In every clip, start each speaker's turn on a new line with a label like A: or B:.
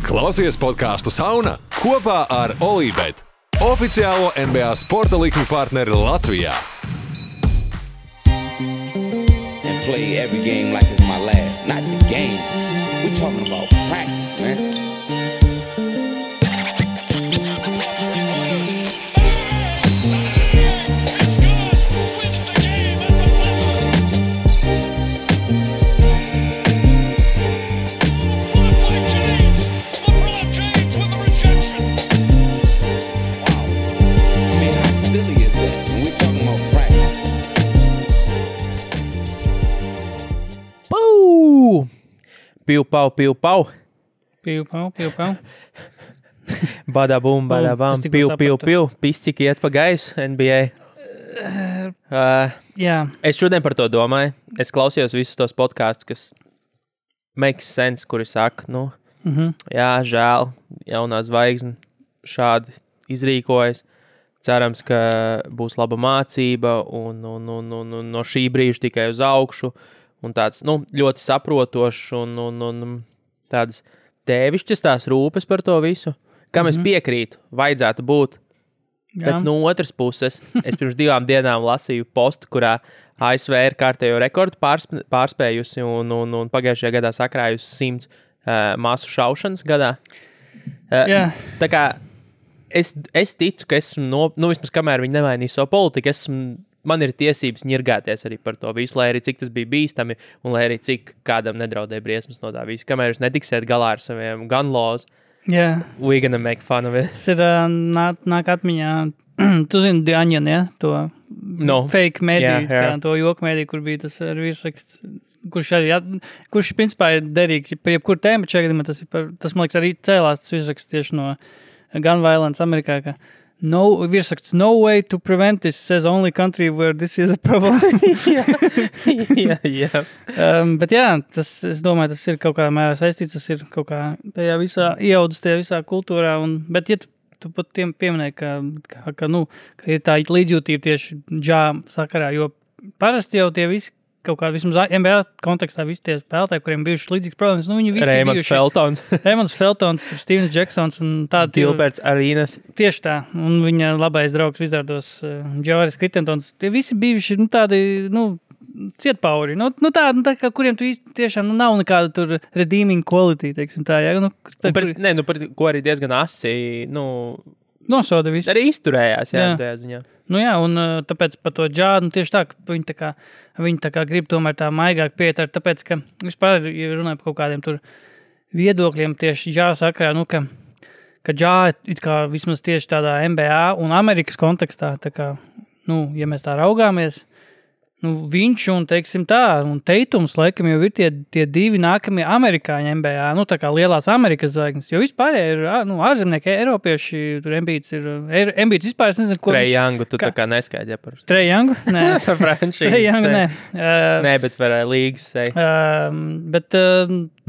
A: Klausies podcastu Sauna kopā ar Olībet, oficiālo NBA sporta likmi partneri Latvijā.
B: And play every game like it's my last. Not the game. We talking about practice, man.
C: Piu-pau.
D: Piu-pau.
C: Badabum, badabam, piu. Pisķiki iet pa gaisu NBA.
D: Jā.
C: Es šodien par to domāju. Es klausījos visus tos podkastus, kas makes sense, kuri saka, jā, žēl, jaunā zvaigzne šādi izrīkojas. Cerams, ka būs laba mācība un no šī brīža tikai uz augšu. Un tāds, ļoti saprotošs un tādas tēvišķas tās rūpes par to visu, kam es piekrītu, vajadzētu būt. Jā. Bet no otras puses, es pirms 2 dienām lasīju postu, kurā ASV ir kārtējo rekordu pārspējusi un pagājušajā gadā sakrājusi 100 masu šaušanas gadā. Tā kā es ticu, ka esmu, vismaz kamēr viņi nemainīja savu politiku, man ir tiesības ņirgāties arī par to visu, lai arī cik tas bija bīstami un lai arī cik kādam nedraudēja briesmas no tā visu. Kamēr jūs netiksiet galā ar saviem gun laws, we gonna make fun of it.
D: Tas ir nāk atmiņā, tu zini The Onion, ja? To fake mediju, to joku mediju, kur bija tas virsraksts, kurš principā ir derīgs par jebkuru tēmu, bet šajā gadījumā tas, man liekas, arī cēlās tas virsraksts tieši no gun violence Amerikā, ka virsraksts, no way to prevent this, says only country where this is a problem.
C: Jā.
D: Bet jā, es domāju, tas ir kaut kādā mērā saistīts, tas ir kaut kā tajā visā ieaudzis, tajā visā kultūrā, bet ja tu pat tiem pieminēji, ka ir tā līdzjūtība tieši džā sakarā, jo parasti jau tie visi kaut kā vismaz NBA kontekstā visi tie spēlētāji, kuriem bijušas līdzīgas problēmas, viņi visi Raymonds Feltons, Stevens Jacksons un tādi.
C: Gilberts Arenas.
D: Tieši tā, un viņa labais draugs Wizardos, Javaris Crittentons, tie visi bijuši tādi, cietpauri, tā kā kuriem tu īsti tiešām nav nekāda tur redeeming quality, teiksim tā, jā.
C: Par ko arī diezgan asi,
D: nosoda visu.
C: Arī izturējās, jā. Tajā ziņā.
D: Un tāpēc par to džādu, tieši tā, ka viņi tā kā grib tomēr tā maigāk pieiet, tāpēc, ka vispār, ja runāju par kaut kādiem tur viedokļiem tieši džāda sakarā, ka džāda it kā vismaz tieši tādā NBA un Amerikas kontekstā, tā kā, ja mēs tā raugāmies, viņš un, teiksim tā, un Teitums, laikam, jau ir tie 2 nākamie amerikāņi NBA, tā kā lielās Amerikas zvaigznes, jo vispār ir, ārzemnieki, eiropieši, tur Embiids vispār, es nezinu, ko
C: Trae Youngu, tu tā kā neskaidri, ja par...
D: Trae Youngu? Nē.
C: Franšīzes.
D: Trae Youngu, nē.
C: Nē, bet par līgas seju.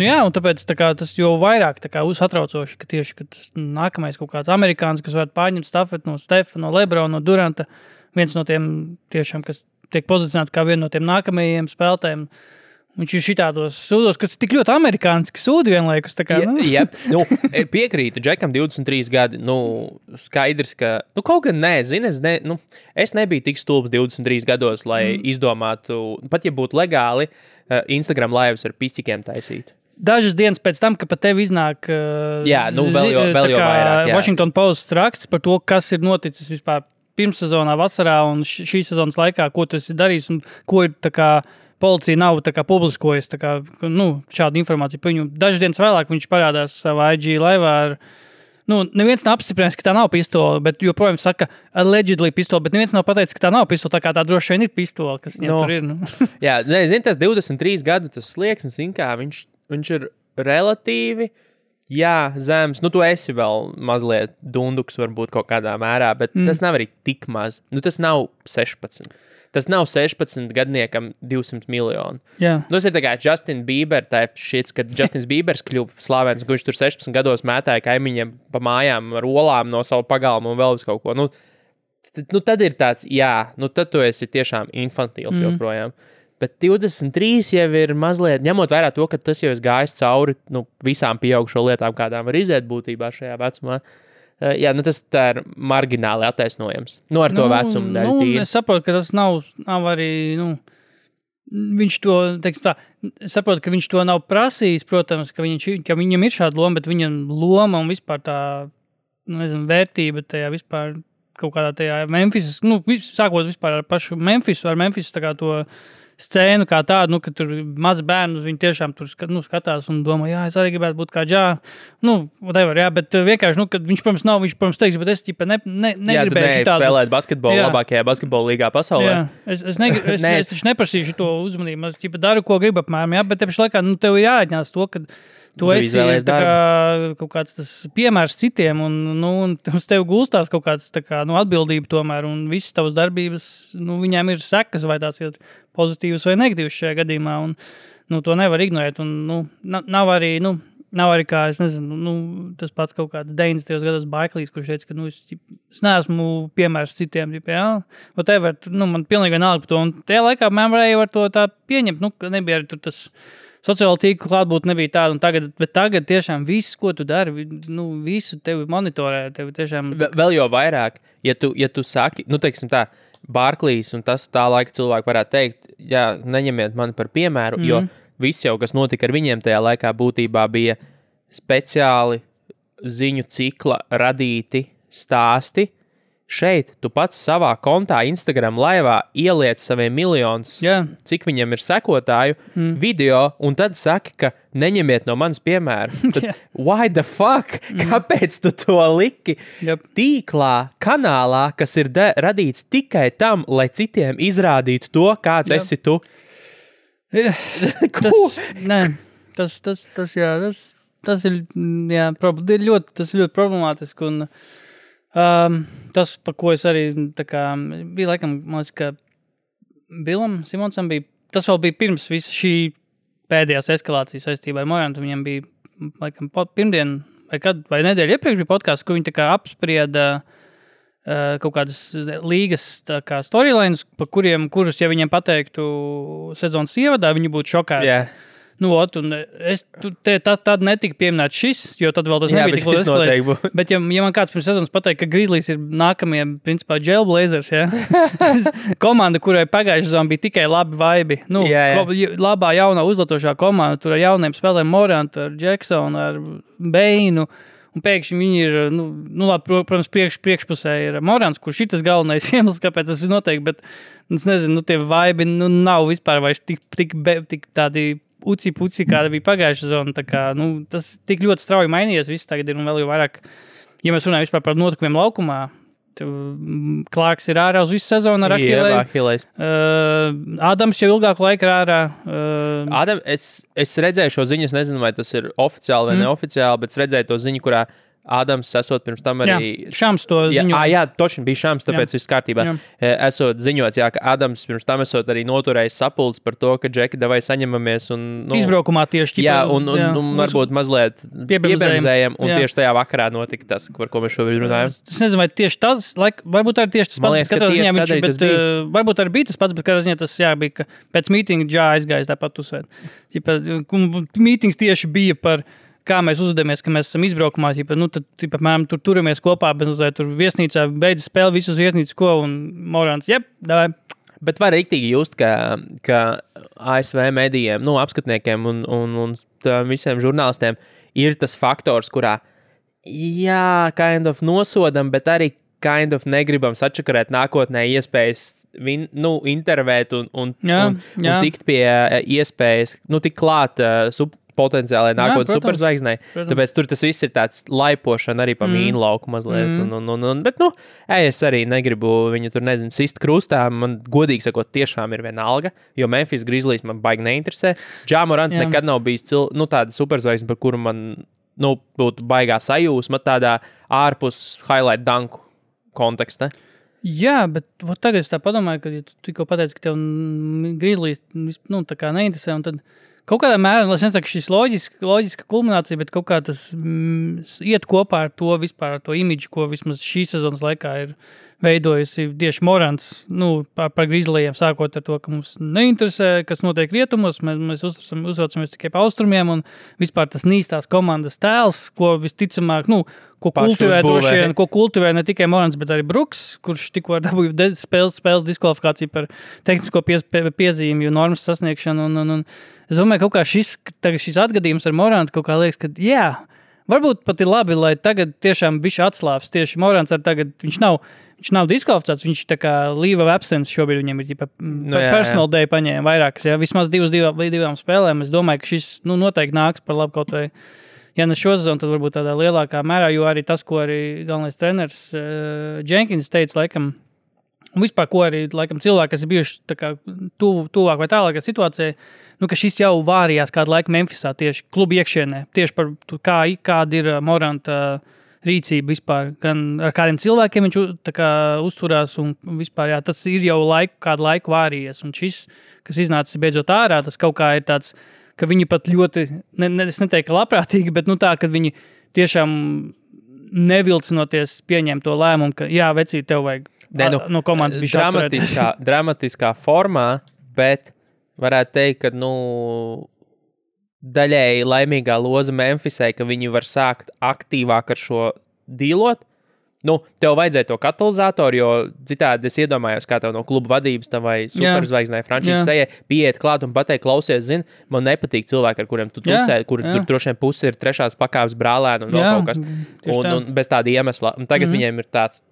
D: Jā, un tāpēc tā kā, tas jau vairāk tā kā satraucoši, ka tieši, ka tas nākamais kaut kāds amerikāns, kas varētu pārņemt stafeti no Stefa, no Lebrona, no Duranta, viens no tiem tiešām, kas tiek pozicionēti kā viena no tiem nākamajiem spēlētājiem. Viņš ir šitādos sūdos, kas ir tik ļoti amerikāniski sūdi vienlaikus. Tā kā,
C: piekrītu, Džekam 23 gadi, skaidrs, ka, kaut gan es nebiju tik stulbs 23 gados, lai izdomātu, pat ja būtu legāli, Instagram lives ar pisķikiem taisīt.
D: Dažas dienas pēc tam, ka pat tev iznāk
C: vēl jau vairāk,
D: Washington Post raksts par to, kas ir noticis vispār pirmssezonā, vasarā un šīs sezonas laikā, ko tu esi darījis un ko ir tā kā policija nav tā kā publiskojas, tā kā, šādu informāciju par viņu. Dažas dienas vēlāk viņš parādās savā IG laivā ar, neviens nav apstiprinājis, ka tā nav pistola, bet joprojām saka allegedly pistola, bet neviens nav pateicis, ka tā nav pistola, tā kā tā droši vien ir pistola, kas viņam tur ir.
C: Jā, tas 23 gadu, tas slieksnis, kā viņš ir relatīvi, zems, tu esi vēl mazliet dunduks varbūt kaut kādā mērā, bet tas nav arī tik maz. Tas nav 16. Tas nav 16 gadniekam 200 miljoni. Tas ir tā kā Justin Bieber, kad Justins Biebers kļuva slavens, ka viņš tur 16 gados mētāja kaimiņiem pa mājām ar olām no savu pagalmu un vēl vis kaut ko. Tad ir tāds, tad tu esi tiešām infantīls joprojām. Bet 23 jau ir mazliet, ņemot vērā to, ka tas jau ir gājis cauri visām pieaugušo lietām, kādām var iziet būtībā šajā vecumā. Jā, tas tā ir margināli attaisnojams. Ar to vecumu dēļ tīri.
D: Es saprotu, ka tas nav arī, viņš to, teiksim tā, es saprotu, ka viņš to nav prasījis, protams, ka viņam ir šāda loma, bet viņam loma un vispār tā, vērtība tajā vispār kaut kādā tajā Memphis, sākot vispār ar pašu Memphisu, tā kā to scēnu kā tādu, ka tur mazi bērni, viņi tiešām tur skatās un domā, jā, es arī gribētu būt kā Džā. Whatever, jā, bet vienkārši, kad viņš, protams, teiks, bet es negribēju šitādu.
C: Spēlēt basketbolu labākajā basketbola līgā pasaulē.
D: Jā, es taču neprasīšu to uzmanību, es daru, ko gribu apmēram, jā, bet tepši laikā, tev ir jāatņās to, ka tu esi kaut kāds tas piemērs citiem, un uz tevi gulstās kaut kāds atbildība tomēr, un visas tavas darbības, viņām ir sekas, vai tās ir pozitīvas vai negatīvas šajā gadījumā, un to nevar ignorēt, un nav arī kā, es nezinu, tas pats kaut kāds 90. gados Baiklīs, kurš teica, ka es neesmu piemērs citiem, jā, whatever, man pilnīgi vienalga par to, un tajā laikā man varēja var to tā pieņemt, ka nebija arī tur tas sociāla tīkla klātbūt nebija tāda, bet tagad tiešām viss, ko tu dari, visu tevi monitorē, tevi tiešām...
C: Vēl jau vairāk, ja tu saki, teiksim tā, Barklīs, un tas tā laika cilvēki varētu teikt, jā, neņemiet mani par piemēru, jo viss jau, kas notika ar viņiem tajā laikā būtībā bija speciāli ziņu cikla radīti stāsti. Šeit tu pats savā kontā Instagram laivā ieliec saviem miljonus, cik viņam ir sekotāju, video, un tad saki, ka neņemiet no manas piemēru. Tad, why the fuck? Kāpēc tu to liki? Tīklā, kanālā, kas ir radīts tikai tam, lai citiem izrādītu to, kāds esi tu?
D: Tas ir ļoti problemātiski, un tas, par ko es arī bija laikam, man liekas, ka Bilam Simonsam bija, tas vēl bija pirms visa šī pēdējās eskalācijas saistībā ar Morantu, viņam bija laikam pirmdien vai nedēļa iepriekš bija podcasts, kur viņi apsprieda kaut kādas līgas storylines, kurus, ja viņiem pateiktu sezonas ievadā, viņi būtu šokēti.
C: Yeah.
D: Un tad netika pieminēts šis, jo tad vēl tas nebija tik ļoti eskalējis. Bet ja man kāds pirms sezonas pateikt, ka Grizzlies ir nākamie, principā, Jailblazers, komanda, kurai pagājušajā sezonā bija tikai labi vaibi. Labā jaunā uzlatošā komanda, tur ar jauniem spēlēm Morant, ar Jacksonu, ar Beinu, un pēkšņi viņi ir, protams, priekšpusē ir Morants, kurš šitas galvenais iemesls, kāpēc tas ir noteikti, bet es nezinu, tie vaibi nav vispār vairs tik tādi uci-puci, kāda bija pagājušā zona. Tas tik ļoti strauji mainījies, viss tagad ir un vēl jau vairāk, ja mēs runājam vispār par notikumiem laukumā, Klārks ir ārā uz visu sezonu ar Achilles. Ādams jau ilgāku laiku ir ārā.
C: Ādam, es redzēju šo ziņu, es nezinu, vai tas ir oficiāli vai neoficiāli, bet es redzēju to ziņu, kurā Ādams esot pirms tam arī...
D: Jā, Šams to ziņoja.
C: Jā, točni bija Šams, tāpēc viss kārtībā. Esot ziņots, ka Ādams pirms tam esot arī noturējis sapulcs par to, ka Džeki, davai saņemamies un...
D: Izbraukumā tieši.
C: Jā, un varbūt mazliet piebemzējam, un tieši tajā vakarā notika tas, par ko mēs šobrīd runājam.
D: Es nezinu, vai tieši tas, varbūt arī tieši tas pats, katrā ziņā viņš, bet varbūt arī bija tas pats, bet katrā ziņā tas, bija, ka pēc mītinga Džā aizgājis tāpat uzsvērt. Mītings tieši bija par kā mēs uzvedamies, ka mēs esam izbraukumā, tad, apmēram, tur turamies kopā, bet tur viesnīcā beidzas spēle visus viesnīcas, un Morants, davai.
C: Bet var riktīgi just, ka ASV medijiem, apskatniekiem un visiem žurnālistiem ir tas faktors, kurā, kind of nosodam, bet arī kind of negribam sačakarēt nākotnē iespējas intervēt un tikt pie iespējas, tik klāt potenciālai nākotnes superzvaigznei. Tāpēc tur tas viss ir tāds laipošana arī pa mīnu lauku mazliet. Bet, es arī negribu viņu tur, sist krustā. Man, godīgi sakot, tiešām ir vienalga, jo Memphis Grizzlies man baigi neinteresē. Ja Morants nekad nav bijis tāda superzvaigzne, par kuru man, būtu baigā sajūsma tādā ārpus highlight danku konteksta.
D: Jā, bet tagad es tā padomāju, ka ja tu tikko pateici, ka tev Grizzlies, tā kā neinteresē, un tad kaut kādā mērā, es nesaku, šis loģiska kulminācija, bet kaut kā tas iet kopā ar to vispār, ar to imidžu, ko vismaz šī sezonas laikā ir veidojusi tieši Morants, par Grizzlyiem, sākot ar to, ka mums neinteresē, kas notiek rietumos, mēs uzraucamies tikai pa austrumiem, un vispār tas nīstās komandas tēls, ko visticamāk, ko kultivē ne tikai Morants, bet arī Bruks, kurš tikko dabūja spēles diskvalifikāciju par tehnisko piezīmju normas sasniegšanu, un es domāju, kaut kā šis atgadījums ar Morantu kaut kā liekas, ka varbūt pat ir labi, lai tagad tiešām bišķi atslāps. Tieši Morants tagad, viņš nav diskvalificēts, viņš tā kā leave of absence šobrīd viņam ir personal day paņēma vairākas, vismaz divām spēlēm. Es domāju, ka šis noteikti nāks par labu kaut vai, ja ne šo sezonu, tad varbūt tādā lielākā mērā, jo arī tas, ko arī galvenais treneris Jenkins teica, laikam, un vispār, ko arī, laikam, cilvēki, kas ir bijuši tā kā tuvāk vai tālākā situācijā, ka šis jau vārījās kādu laiku Memphisā tieši klubu iekšienē, tieši par kāda ir Moranta rīcība vispār, gan ar kādiem cilvēkiem viņš tā kā uzturās un vispār, tas ir jau kādu laiku vārījies, un šis, kas iznācis beidzot ārā, tas kaut kā ir tāds, ka viņi pat ļoti, es neteiktu, ka labprātīgi, bet tā, ka viņi tiešām nevilcinoties pieņem to lēmumu, ka vecīt, tev vajag no komandas bišķi
C: dramatiskā formā, bet varētu teikt, ka, daļēji laimīgā loza Memphisai, ka viņi var sākt aktīvāk ar šo dīlot. Tev vajadzēja to katalizatoru, jo citādi es iedomājos, kā tev no kluba vadības vai superzvaigznē frančīzes sejai pieiet klāt un pateikt, klausies, man nepatīk cilvēki, ar kuriem tu tusē, kur tur droši vien pusi ir trešās pakāpes brālēni un vēl kaut kas. Un bez tāda iemesla. Un tagad viņiem ir tāds,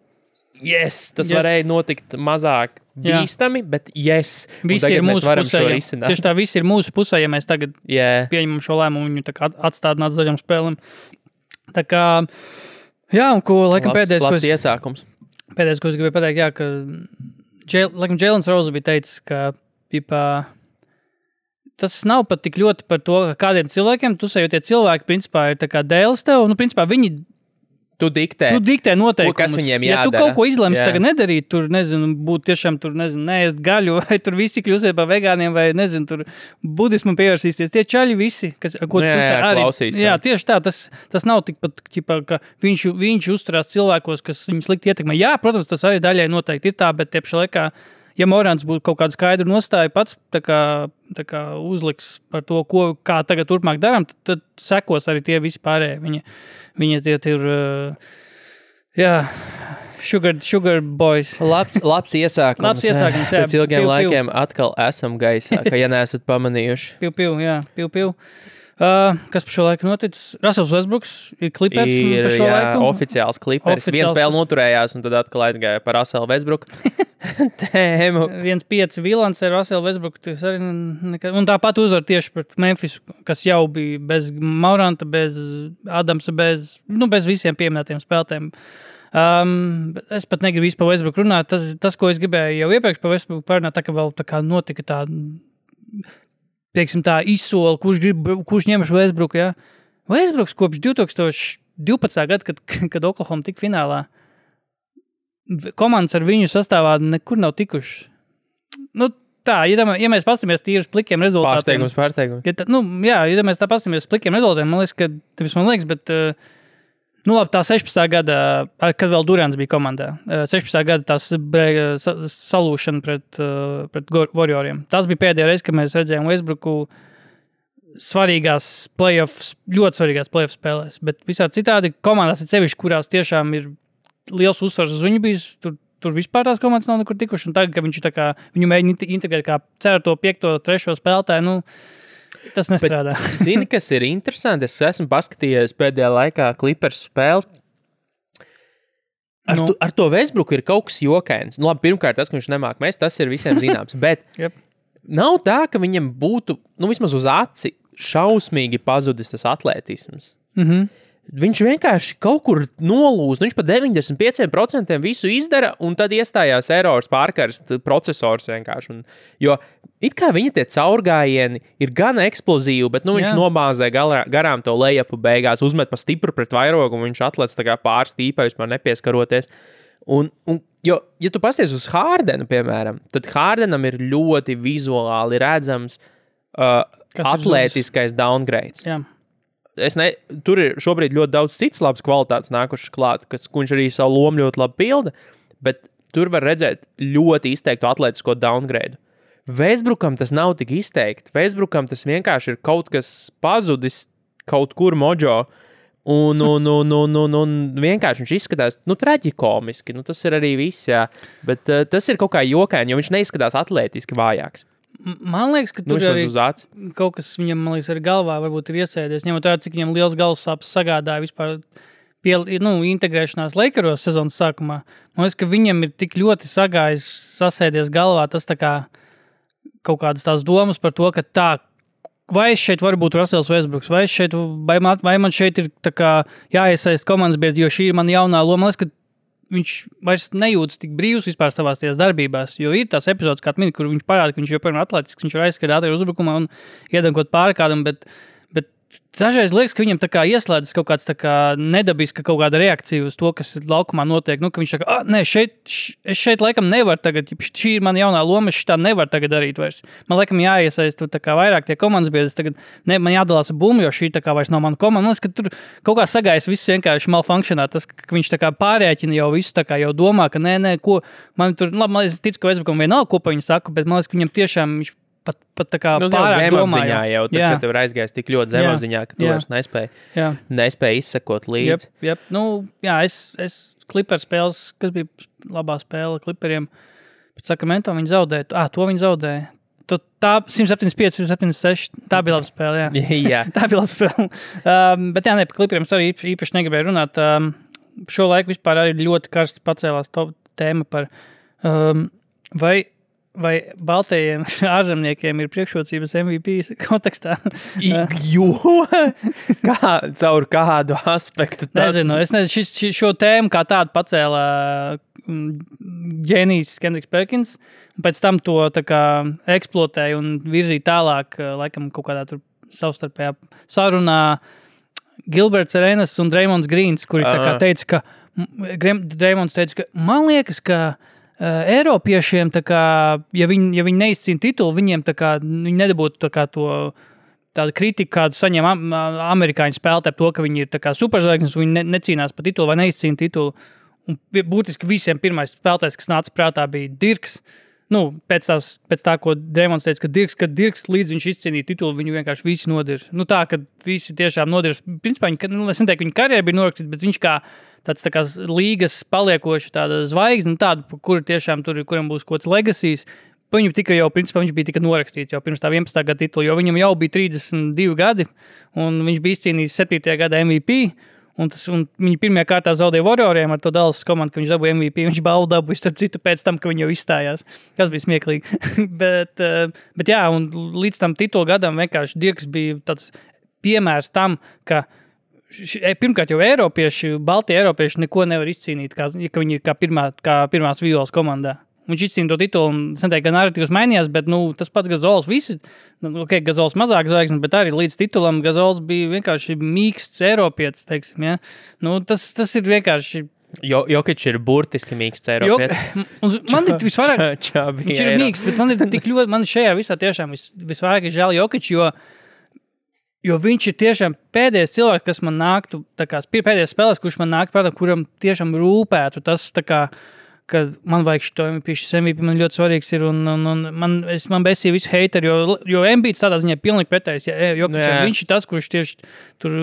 C: tas varēja notikt mazāk bīstami, bet
D: visi ir mūsu pusē. Tieši tā, visi ir mūsu pusē, ja mēs tagad pieņemam šo lēmumu, viņu tā kā atstādināt dažām spēlēm. Tā kā, un ko, laikam,
C: labs iesākums.
D: Pēdējais, ko es gribēju pateikt, ka laikam Jēlens Rose bija teicis, ka tas nav pat tik ļoti par to, ka kādiem cilvēkiem tusē, jo tie cilvēki, principā, ir tā kā dēles tev, principā, viņi
C: Tu diktē
D: noteikumus.
C: Kas viņiem jādara.
D: Ja tu kaut ko izlemsi tagad nedarīt, tur, būt tiešām, neēst gaļu, vai tur visi kļūsiet par vegāniem, vai, tur budismu pievērsīsties. Tie čaļi visi, kas, ko tu arī klausīs. Jā, tieši tā, tas nav tikpat, ka viņš uzturās cilvēkos, kas viņus slikti ietekmē. Jā, protams, tas arī daļai noteikti ir tā, bet tiepšā laikā, ja Morants būtu kaut kādu skaidru nostāju pats tā kā uzliks par to, kā tagad turpmāk darām, tad sekos arī tie visi pārējie. Viņi tie ir, sugar boys.
C: Labs iesākums. Pēc ilgiem laikiem atkal esam gaisā, ka ja neesat pamanījuši.
D: Piu. Kas par šo laiku noticis? Russells Westbrooks ir Clippers par šo laiku?
C: Oficiāls Clippers. Viena spēle noturējās un tad atkal aizgāja par Russellu Westbrooku. Tēmu.
D: 1-5 Vilans ar Russellu Westbrooku. Un tāpat uzvar tieši pret Memphis, kas jau bija bez Moranta, bez Adamsa, bez visiem pieminētiem spēlētājiem. Es pat negribu visu par Westbrooku runāt. Tas, ko es gribēju jau iepriekš par Westbrooku parunāt, tā ka vēl tā kā notika tā izsoli, kurš ņem šo Westbrooku, Westbrooks kopš 2012. Gada, kad Oklahoma tika finālā, komandas ar viņu sastāvā nekur nav tikuši. Tā, ja mēs pastamies tīri uz plikiem rezultātiem.
C: Pārsteigums.
D: Ja mēs tā pastamies uz plikiem rezultātiem, man liekas, bet labi, tā 16. gada, kad vēl Durants bija komandā, 16. gada tās salūšana pret Warrioriem. Tas bija pēdējā reize, kad mēs redzējām Westbrooku ļoti svarīgās playoff spēlēs, bet visā citādi komandās ir sevišķi, kurās tiešām ir liels uzsvars uz viņu bijis, tur vispār tās komandas nav nekur tikuši, un tagad, ka viņš viņu mēģina integrēt kā 4., 5., 3. spēlētāju, tas nestrādā.
C: Bet, zini, kas ir interesanti? Es esmu paskatījies pēdējā laikā Clippers spēles. Ar to Westbrooku ir kaut kas jokains. Labi, pirmkārt, tas, ka viņš nemāk mest, tas ir visiem zināms. Bet nav tā, ka viņam būtu, vismaz uz aci, šausmīgi pazudis tas atlētisms. Viņš vienkārši kaut kur nolūst. Viņš pa 95% visu izdara, un tad iestājās errors pārkarst procesors vienkārši. Jo it kā viņa tie caurgājieni ir gan eksplozīvi, bet viņš nomāzē garām to lejapu beigās, uzmet pa stipru pret vairogu, un viņš atlec tā kā pārstīpā, vispār nepieskaroties. Jo, ja tu pasties uz Hārdenu, piemēram, tad Hārdenam ir ļoti vizuāli redzams atlētiskais downgrades.
D: Jā.
C: Tur ir šobrīd ļoti daudz cits labs kvalitātes nākušas klāt, ko viņš arī savu lomu ļoti labi pilda, bet tur var redzēt ļoti izteiktu atletisko downgrade. Westbrookam tas nav tik izteikti. Westbrookam tas vienkārši ir kaut kas pazudis kaut kur mojo. Un vienkārši viņš izskatās, traģikomiski. Tas ir arī viss, jā. Bet tas ir kaut kā jokaini, jo viņš neizskatās atlētiski vājāks.
D: Man liekas, ka tur arī kaut kas viņam, man liekas, ar galvā varbūt ir iesēdies. Ņemot vērā, cik viņam liels galvas sāpes sagādāja vispār integrēšanās Lakeros sezonas sākumā. Man liekas, ka viņam ir tik ļoti sasēdies galvā tas tā kā kaut kādas tās domas par to, ka tā, vai šeit var būt Russells Westbrooks, vai man šeit ir tā kā jāiesaist komandas biedri, jo šī ir man jaunā loma. Man liekas, ka viņš vairs nejūtas tik brīvs vispār savās tās darbībās, jo ir tās epizodes, kā mini, kur viņš parāda, ka viņš joprojām ir atletisks, viņš var aizskatīt ātri uzbrukumā un iedankot pāri kādam, bet dažreiz liekas, ka viņam tā kā ieslēdzas kaut kāds tā kā nedabiska kaut kāda reakcija uz to, kas laukumā notiek. Ka viņš saka, es šeit laikam nevaru tagad, šī ir mana jaunā loma, es šitā nevaru tagad darīt vairs. Man laikam jāiesaist tā kā vairāk tie komandas biedri, tagad man jādalās ar bumbu, jo šī tā kā vairs nav mana komanda. Man liekas, ka tur kaut kā sagājas viss vienkārši malfunkcionā, tas, ka viņš tā kā pārēķina jau visu, tā kā jau domā, ka ko, man tur, labi, es ticu, ka Westbrookam vienalga, ko pa viņu saku, bet man liekas, ka viņam tiešām viņš pat tā kā pārāk domāja.
C: Jau tas, ja tev ir aizgājis tik ļoti zemapziņā, ka tu vairs nespēji izsekot līdzi.
D: Es Clippers spēles, kas bija labā spēle Clipperiem, pēc Sacramento viņi zaudēja. To viņi zaudēja. Tā 175, 176, tā bija laba spēle, jā. Tā bija laba spēle. Bet par Clipperiem es arī īpaši negribēju runāt. Šo laiku vispār arī ļoti karsts pacēlās tēma par vai baltajiem ārzemniekiem ir priekšrocības MVP kontekstā?
C: Caur kādu aspektu tas?
D: Nezinu, šo tēmu kā tādu pacēla ģēnijs Kendricks Perkins, un pēc tam to tā kā eksploatēja un virzīja tālāk, laikam kaut kādā tur savstarpējā sarunā Gilberts Arenas un Draymonds Greens, kuri tā kā teica, Draymonds teica, ka man liekas, ka Eiropiešiem, tā kā, ja viņi neizcīna titulu, viņiem tā kā, viņi nedabūtu tā kā tādu kritiku, kādu saņem amerikāņu spēlētāji par to, ka viņi ir tā kā superzvaigznes, viņi necīnās par titulu vai neizcīna titulu. Un būtiski visiem pirmais spēlētājs, kas nāca prātā, bija Dirks. Pēc tā, ko Draymonds teica, ka Dirks līdz viņš izcīnīja titulu, viņu vienkārši visi nodirs. Tā, ka visi tiešām nodirs. Principā, es neteiktu, ka viņa karjera bija norakstīta, bet viņš kā tāds tā kā līgas paliekoši tāda zvaigzne, tāda, kur tiešām kuram būs kaut kāds legacies. Viņu tika jau, principā, viņš bija tika norakstīts jau pirms tā 11. gada titula, jo viņam jau bija 32 gadi, un viņš bija izcīnījis 7. gada MVP. Un viņi pirmajā kārtā zaudēja Warrioriem ar to Dallas komandu, ka viņš dabūja MVP. Viņš balvu dabūja starp citu pēc tam, ka viņi jau izstājās. Tas bija smieklīgi. bet jā, un līdz tam titulu gadam vienkārši Dirks bija tāds piemērs tam, ka pirmkārt jau baltie eiropieši neko nevar izcīnīt, ka viņi ir kā pirmās violas komandā. Viņš izcīna to titulu, un es neteiktu, ka narratīvs mainījās, bet tas pats Gazols visi, Gazols mazāk zvaigznes, bet arī līdz titulam Gazols bija vienkārši mīksts eiropietis, teiksim, ja. Tas ir vienkārši...
C: Jokič ir burtiski mīksts eiropietis.
D: Man ir visvairāk... Viņš ir mīksts, bet man ir tik ļoti... Man šajā visā tiešām visvairāk ir žēl Jokič, jo viņš ir tiešām pēdējais cilvēks, kas man nāktu, tā kā pēdējais spēlēs, kurš man nāktu prātā, kuram tiešām rūpētu tas, tā kā... ka man vajag šito MVP, man ļoti svarīgs ir, un man besīja visu heiteri, jo Embiids tādā ziņā pilnīgi pretējs, viņš ir tas, kurš tieši tur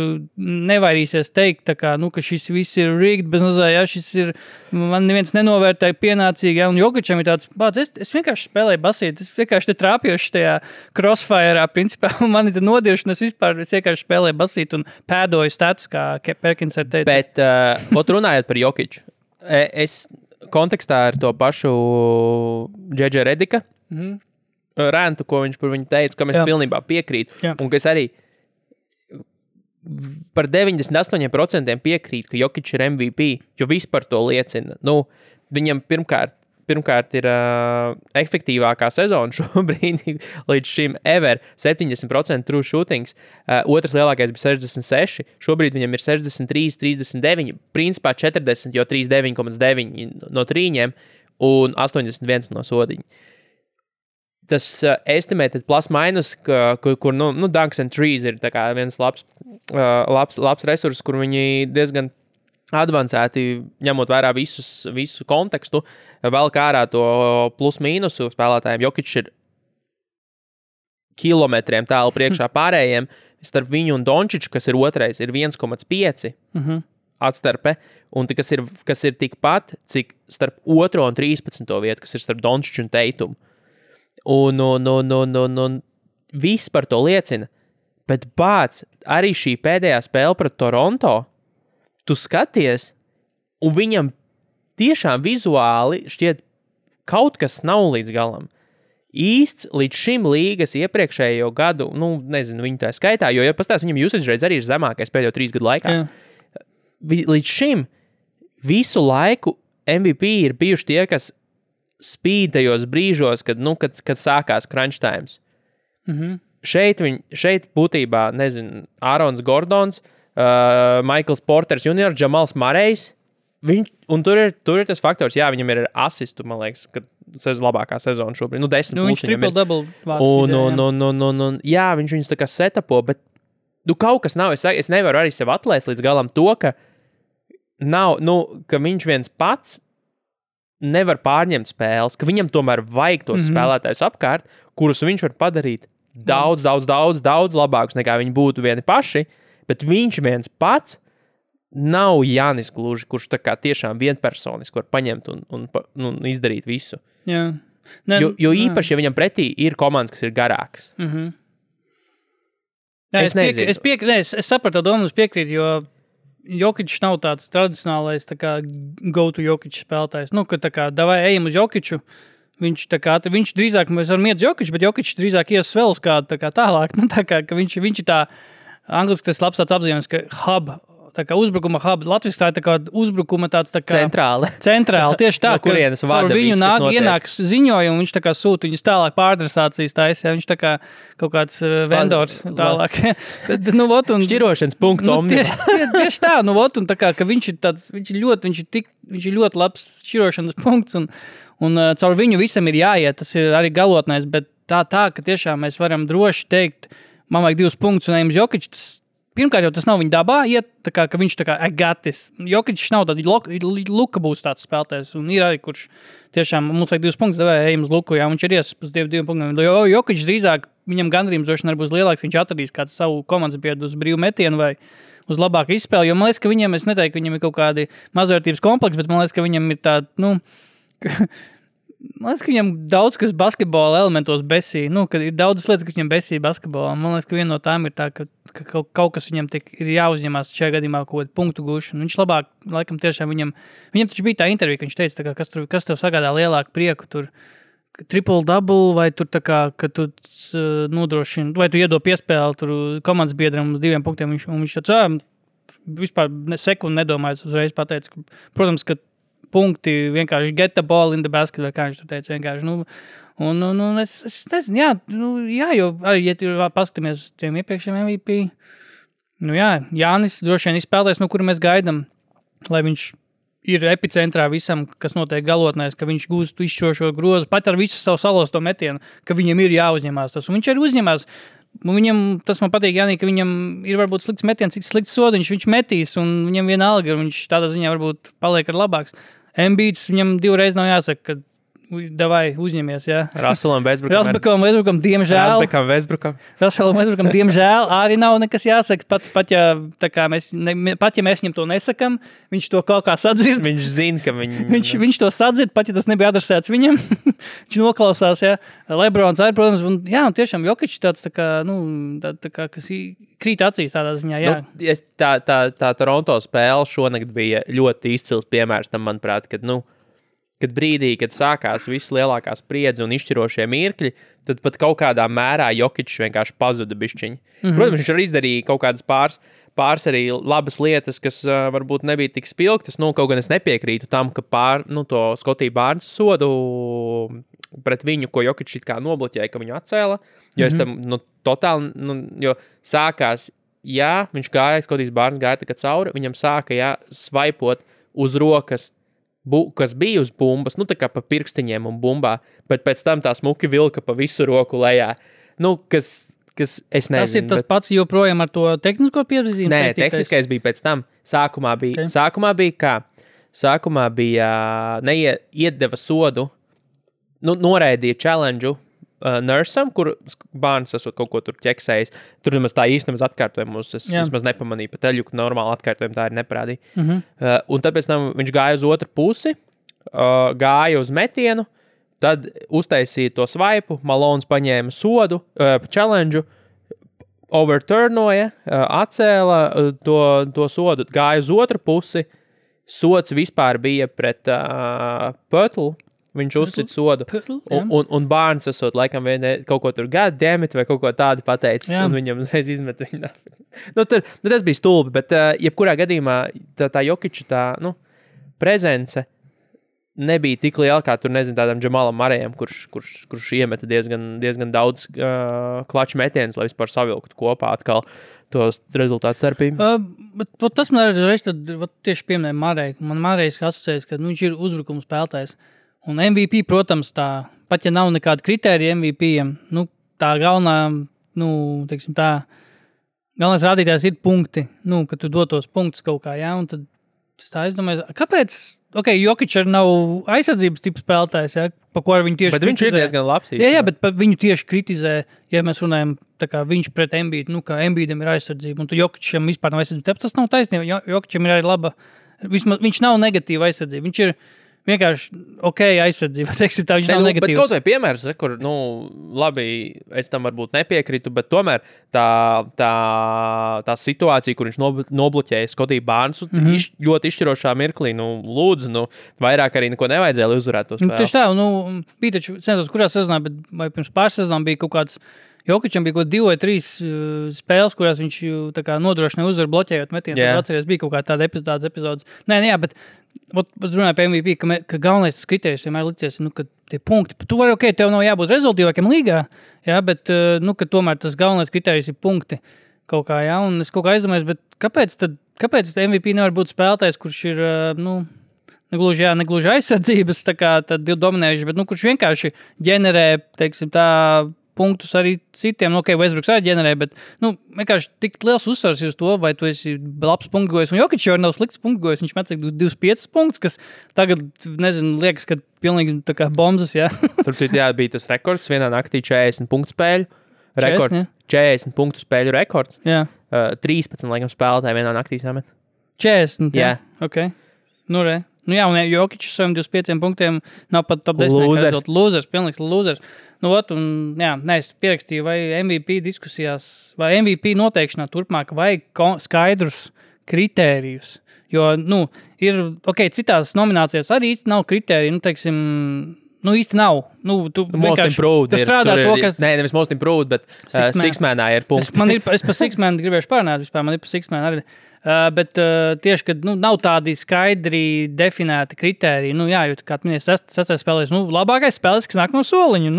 D: nevairīsies teikt, tā kā, ka šis viss ir rigged, bez mazā, šis ir, man neviens nenovērtēja pienācīgi, un Jokičam ir tāds, es vienkārši spēlēju basīt, es vienkārši te trāpjoši tajā crossfire'ā, principā, un man ir nodiršana, es vienkārši spēlēju basīt un pēdoju status, kā Perkins ar teica.
C: Bet, runājot par Jokiču, es kontekstā ar to pašu Džedža Redika rēntu, ko viņš par viņu teica, kam es pilnībā piekrītu. Jā. Un ka es arī par 98% piekrītu, ka Jokič ir MVP, jo viss par to liecina. Viņam pirmkārt ir efektīvākā sezona šobrīd līdz šim ever 70% true shootings, otrs lielākais bija 66, šobrīd viņam ir 63, 39, principā 40, jo 39,9 no trīņiem un 81 no sodiņa. Tas estimated plus minus, kur Dunks and Trees ir tā kā viens labs resurs, kur viņi diezgan advancēti, ņemot vērā visu kontekstu, vēl kā ārā to plus-mīnusu spēlētājiem. Jokičs ir kilometriem tālu priekšā pārējiem, starp viņu un Dončiču, kas ir otrais, ir 1,5 atstarpe, un kas ir tikpat, cik starp 2. un 13. vietu, kas ir starp Dončiču un Teitumu. Un viss par to liecina, bet bāc, arī šī pēdējā spēle pret Toronto, tu skaties, un viņam tiešām vizuāli šķiet kaut kas nav līdz galam. Īsts līdz šim līgas iepriekšējo gadu, nezinu, viņu tā skaitā, jo, ja pastāst, viņam usage rates arī ir zemākais pēdējo 3 gadu laikā. Jā. Līdz šim visu laiku MVP ir bijuši tie, kas spīd tajos brīžos, kad sākās crunch times. Šeit būtībā, nezinu, Ārons Gordons, Michaels Porters Jr., Jamals Marejs, un tur ir tas faktors, jā, viņam ir asistu, man liekas, kad labākā sezona šobrīd. 10
D: viņš triple-double
C: vāc. Jā, viņš viņus tā kā setapo, bet kaut kas nav. Es nevaru arī sev atlaist līdz galam to, ka nav, ka viņš viens pats nevar pārņemt spēles, ka viņam tomēr vajag tos spēlētājus apkārt, kurus viņš var padarīt daudz labākus nekā viņi būtu vieni paši, bet viņš viens pats nav Jānis gluži, kurš tā kā tiešām vienpersoniski var paņemt un izdarīt visu.
D: Jā.
C: Jo īpaši, ja viņam pretī ir komandas, kas ir garākas.
D: Jā, es sapratu to domu, es piekrītu, jo Jokičs nav tāds tradicionālais tā kā go-to Jokičs spēlētājs. Ka tā kā davai ejam uz Jokiču, viņš drīzāk, mēs varam iet uz Jokiču, bet Jokičs drīzāk ies vēl uz kādu tā kā tālāk. Ka viņš ir tā, angliski tas labs tāds apzīmējums, ka hub, tā kā uzbrukuma hub, latviski tā ir tā kā uzbrukuma tāds tā kā... Centrāli, tieši tā,
C: no kurienes
D: ka caur viņu ienāks ziņojumi, viņš tā kā sūta viņus tālāk pāradresācijas taisa, viņš tā kā kaut kāds vendors tālāk.
C: Šķirošanas punkts omni.
D: Tieši tā, un tā kā, ka viņš ir ļoti labs šķirošanas punkts, un caur viņu visam ir jāiet, tas ir arī galotnais, bet tā, ka tiešām mēs varam droši teikt, man vajag 2 punktus un ejam uz Jokiču, pirmkārt jau tas nav viņa dabā, ka viņš tā kā agatis. Jokičs nav tādi, Luka būs tāds spēlētājs, un ir arī, kurš tiešām mums vajag 2 punktus, devēja ejam uz Luku, jā, viņš ir ies uz 2 punktiem. Jokičs drīzāk, viņam gandrījums droši vien būs lielāks, viņš atradīs kādu savu komandas biedru uz brīvu metienu vai uz labāku izspēli, jo man liekas, ka viņam, es neteiktu, ka viņam ir kaut kādi mazvērtības kompleks, bet man liekas, ka viņam ir tāda, man liekas, ka viņam daudz, kas basketbola elementos besī, kad ir daudzas lietas, kas viņam besī basketbolā. Man liekas, ka viena no tām ir tā, ka kaut kas viņam ir jāuzņemās šajā gadījumā kaut kādu punktu gūšanu. Viņš labāk, laikam tiešām viņam taču bija tā intervija, ka viņš teica, kā, kas tev sagādā lielāku prieku, tur triple-double, vai tur tā kā, ka tu nodrošini, vai tu iedod piespēli tur komandas biedram uz 2 punktiem, viņš tāds, vispār sekundi nedomājot uzreiz pateica, protams, ka punkti vienkārši get the ball in the basket, vai kā viņš tur teica vienkārši. Es nezinu, jā, jo arī, ja tu paskatāmies tiem iepriekšējiem MVP, Jānis droši vien izspēlēs, no kura mēs gaidam, lai viņš ir epicentrā visam, kas notiek galotnēs, ka viņš gūst izšķirošo grozu, pat ar visu savu salosto metienu, ka viņam ir jāuzņemās tas. Un viņš arī uzņemās. Viņam, tas man patīk, Jānī, ka viņam ir varbūt slikts metiens, cik slikts sodiņš, viņš metīs, un viņam vienalga, viņš tādā ziņā varbūt paliek ar labāks. Embiids, viņam 2 reizes nav jāsaka, ka davai uzņemies, jā.
C: Russellam Westbrookam,
D: diemžēl arī nav nekas jāsaka, pat ja mēs viņam to nesakam, viņš to kaut kā sadzird.
C: Viņš zina, ka
D: viņš to sadzird, pat ja tas nebija adresēts viņam. Viņš noklausās, jā. Lebrons arī, protams, un jā, un tiešām Jokičs tāds tā kā, kas krīt acīs tādā ziņā, jā.
C: Tā Toronto spēle šonakt bija ļoti izcils piemērs tam, manuprāt, kad brīdī, kad sākās viss lielākā spriedze un izšķirošie mirkļi, tad pat kaut kādā mērā Jokičs vienkārši pazuda bišķiņi. Protams, viņš arī izdarīja kaut kādas pāris arī labas lietas, kas varbūt nebija tik spilgtas. Kaut gan es nepiekrītu tam, ka to Skotiju Bārnsa sodu pret viņu, ko Jokičs it kā nobloķēja, ka viņu atcēla, jo es tam totāli, jo sākās, jā, viņš gāja, Skotijas Bārns gāja tā kā cauri, viņam sāka, jā, svaipot uz rokas, kas bija uz bumbas, tā kā pa pirkstiņiem un bumbā, bet pēc tam tā smuki vilka pa visu roku lejā. Kas kas es nezinu.
D: Tas ir tas pats joprojām ar to tehnisko piezīmi?
C: Nē, tehniskais bija pēc tam. Sākumā bija kā? Sākumā bija iedeva sodu, noraidīja challenge Nursam, kur bērns esot kaut ko tur ķeksējis. Tur nemaz tā īstenībā atkārtojumu es vismaz nepamanīju, pat teļu, ka normāli atkārtojumu tā ir neparādīja. Un tad pēc tam viņš gāja uz otru pusi, gāja uz metienu, tad uztaisīja to svaipu, Malons paņēma sodu, challenge, overturnoja, atcēla to sodu, gāja uz otru pusi, sods vispār bija pret Pötlu, viņš uzsit sodu, un bērns esot laikam kaut ko tur goddammit vai kaut ko tādu pateicis, un viņam uzreiz izmet viņu. Tas bija stulbi, bet jebkurā gadījumā tā Jokiča prezence nebija tik liela, kā tur, nezinu, tādam Džamalam Marejam, kurš iemeta diezgan daudz klaču metienus, lai vispār savilktu kopā atkal tos rezultātu starpību.
D: Tas man reiz tieši pieminēja Mareju. Man Marejs asociējas, ka viņš ir uzbrukuma spēlētājs. Un MVP, protams, tā, pat ja nav nekāda kritērija MVP-iem, tā galvenā, teiksim tā, galvenais rādītājs ir punkti, ka tu dotos punktus kaut kā, un tad tā es domāju, kāpēc, Jokič arī nav aizsardzības tipa spēlētājs, pa ko ar viņu tieši
C: bet
D: kritizē.
C: Viņš ir diezgan labs.
D: Jā, bet viņu tieši kritizē, ja mēs runājam, tā kā viņš pret Embiidu, ka Embiidam ir aizsardzība, un tu Jokičam vispār nav aizsardzība. Tas nav taisnība, Jokičam ir arī laba, vismaz viņš nav negatīva aizsardzība, viņš ir vienkārši aizsardzība, teiksim tā, viņš nav negatīvs.
C: Bet kaut vai piemērs, kur, labi, es tam varbūt nepiekrītu, bet tomēr tā situācija, kur viņš nobloķēja Skotiju Barnesu, ļoti izšķirošā mirklī, lūdzu, vairāk arī neko nevajadzēja, lai uzvarētu to spēli.
D: Tieši tā, bija taču, nesos, kurā sezonā, bet vai pirms pāris sezonām bija kaut kāds, Jokičam bija 2 vai 3 spēles, kurās viņš tā kā nodrošināja uzvaru bloķējot metienus. Atceries, bija kaut kā tāda epizodes. Nē, bet runāju par MVP, ka galvenais tas kriterijs vienmēr licies, ka tie punkti, tu vari, tev nav jābūt rezultīvākiem līgā, bet, ka tomēr tas galvenais kriterijs ir punkti kaut kā, un es kaut kā aizdomājos, bet kāpēc MVP nevar būt spēlētājs, kurš ir, negluži aizsardzības, tā kā tad dominējuši, bet, kurš vienkārši ģenerē, teiksim tā, punktus arī citiem, Westbrooks arī ģenerē, bet, vienkārši tik liels uzsvars ir uz to, vai tu esi labs punktgojs, un Jokič jau nav slikts punktgojs, viņš met 25 punktus, kas tagad, nezinu, liekas, ka pilnīgi tā kā bombas,
C: Starpcīt, bija tas rekords, vienā naktī 40 punktu spēļu, rekords, 40 punktu spēļu rekords, 13, laikam, spēlētāji vienā naktī samet.
D: 40, un Jokičs saviem 25 punktiem nav pat top 10. Lūzers, pilnīgs lūzers. Es pierakstīju, vai MVP diskusijās, vai MVP noteikšanā turpmāk vajag skaidrus kritērijus. Jo, ir, citās nominācijās arī īsti nav kritēriju, teiksim, īsti nav. Tu
C: most improved
D: ir.
C: Nevis most improved, bet Sixmanā ir punkts.
D: Es par Sixmanu gribēšu pārnāt vispār, man ir par Sixmanu arī. Bet tieši, kad nav tādi skaidri definēti kritēriji, jo, kā minēja, sastais spēlēs, labākais spēlēs, kas nāk no soliņa,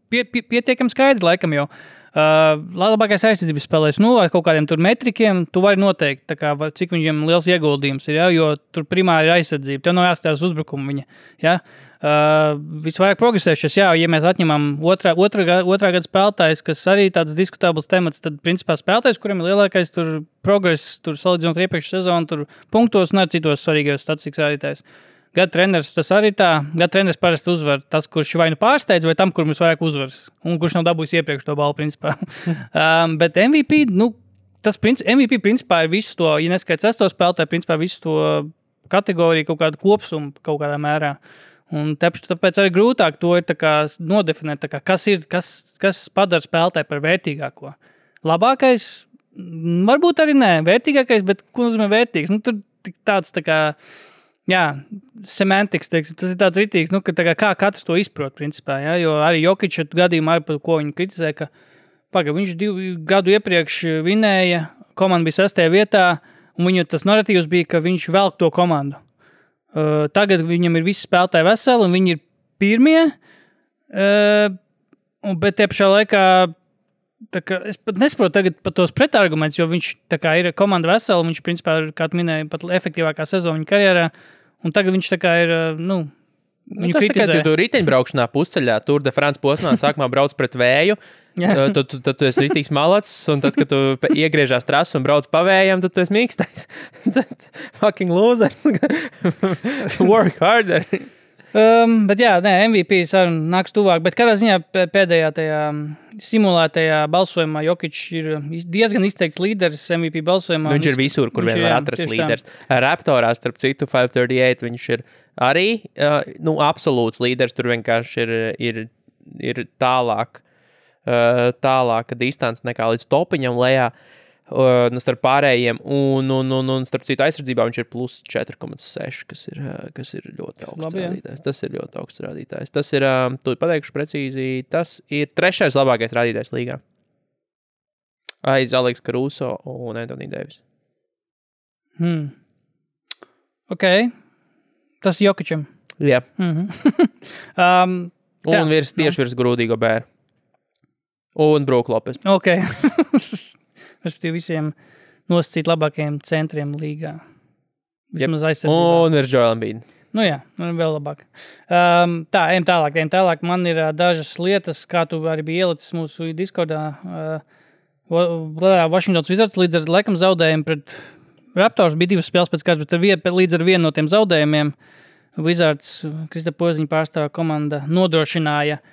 D: pietiekam skaidri laikam jau. Labākais aizsardzības spēlēs, ar kaut kādiem tur metrikiem, tu vari noteikt, tā kā, cik viņiem liels ieguldījums ir, jo tur primāri ir aizsardzība, tev nav jāstās uzbrukumu viņa, visvairāk progresējušies, ja mēs atņemam otrā gada spēlētājs, kas arī tāds diskutabls temats, tad principā spēlētājs, kuriem ir lielākais tur progress, tur salīdzinot iepriekšu sezonu, tur punktos un ar citos svarīgajos statistikas rādītājs. Gada treneris tas arī tā. Gada treneris parasti uzvar tas, kurš vai pārsteidz, vai tam, kur mums vairāk uzvaras. Un kurš nav dabūjis iepriekš to balvu, principā. Bet MVP, tas MVP principā ir visu to, ja neskaits 6. spēlētāju, principā visu to kategoriju kaut kādu kopsumu kaut kādā mērā. Un tāpēc arī grūtāk to ir tā kā nodefinēt, tā kā, kas padara spēlētāju par vērtīgāko. Labākais, varbūt arī nē, vērtīgākais, bet ko nozīmē vērtīgs? Tur tāds tā kā, semantiks, teiksim, tas ir tāds ritīgs, ka tā kā katrs to izprot, principā, jo arī Jokiča gadījumā, ar ko viņu kritizē, ka viņš 2 gadu iepriekš vinēja, komanda bija 6. vietā, un viņu tas narratīvs bija, ka viņš velk to komandu. Tagad viņam ir visi spēlētāji veseli, un viņi ir pirmie, bet te pašā laikā es pat nesaprotu tagad par tos pretargumentus, jo viņš tā kā ir komanda vesela, un viņš principā ir, kā tu minēji, pat efektīvākā sezona viņa karjerā, un tagad viņš tā kā ir, Viņu
C: Tas
D: kritizē.
C: tikai tu riteņbraukšanā pusceļā, Tour de France posmā sākumā brauc pret vēju, tad tu esi ritīgs malacis, un tad, kad tu iegriežās trasu un brauc pa vējam, tad tu esi mīkstais. Tad fucking losers. Work harder.
D: Bet jā, MVP saruna nāks tuvāk, bet kādā ziņā pēdējā tajā simulētajā balsojumā Jokic ir diezgan izteikts līderis MVP balsojumā.
C: Viņš ir visur, kur vien var atrast līderis. Raptorā, starp citu, 538, viņš ir arī absolūts līderis, tur vienkārši ir tālāka distance nekā līdz topiņam lejā. Starp pārējiem, un starp citu aizsardzībā viņš ir plus 4,6, kas ir ļoti augsts rādītājs. Tas ir ļoti augsts rādītājs. Tas ir, tu pateikšu precīzi, tas ir 3. labākais rādītājs līgā. Aiz Aleks Caruso un Anthony Davis.
D: Ok. Tas ir Jokicam.
C: Jā. Un tieši virs Grūdīgo bēru. Un Brook Lopes.
D: Ok. Respektīvi visiem nosacīt labākajiem centriem līgā. Vismaz aizsardzībā.
C: Un virs Joel Embiid.
D: Nu jā, vēl labāk. Ejam tālāk. Man ir dažas lietas, kā tu arī biji ielicis mūsu Discordā. Washingtons Wizards līdz ar laikam zaudējumu pret Raptors bija 2 spēles pēc kāds, bet līdz ar vienu no tiem zaudējumiem Wizards, Kristapa Poziņa pārstāvā komanda, nodrošināja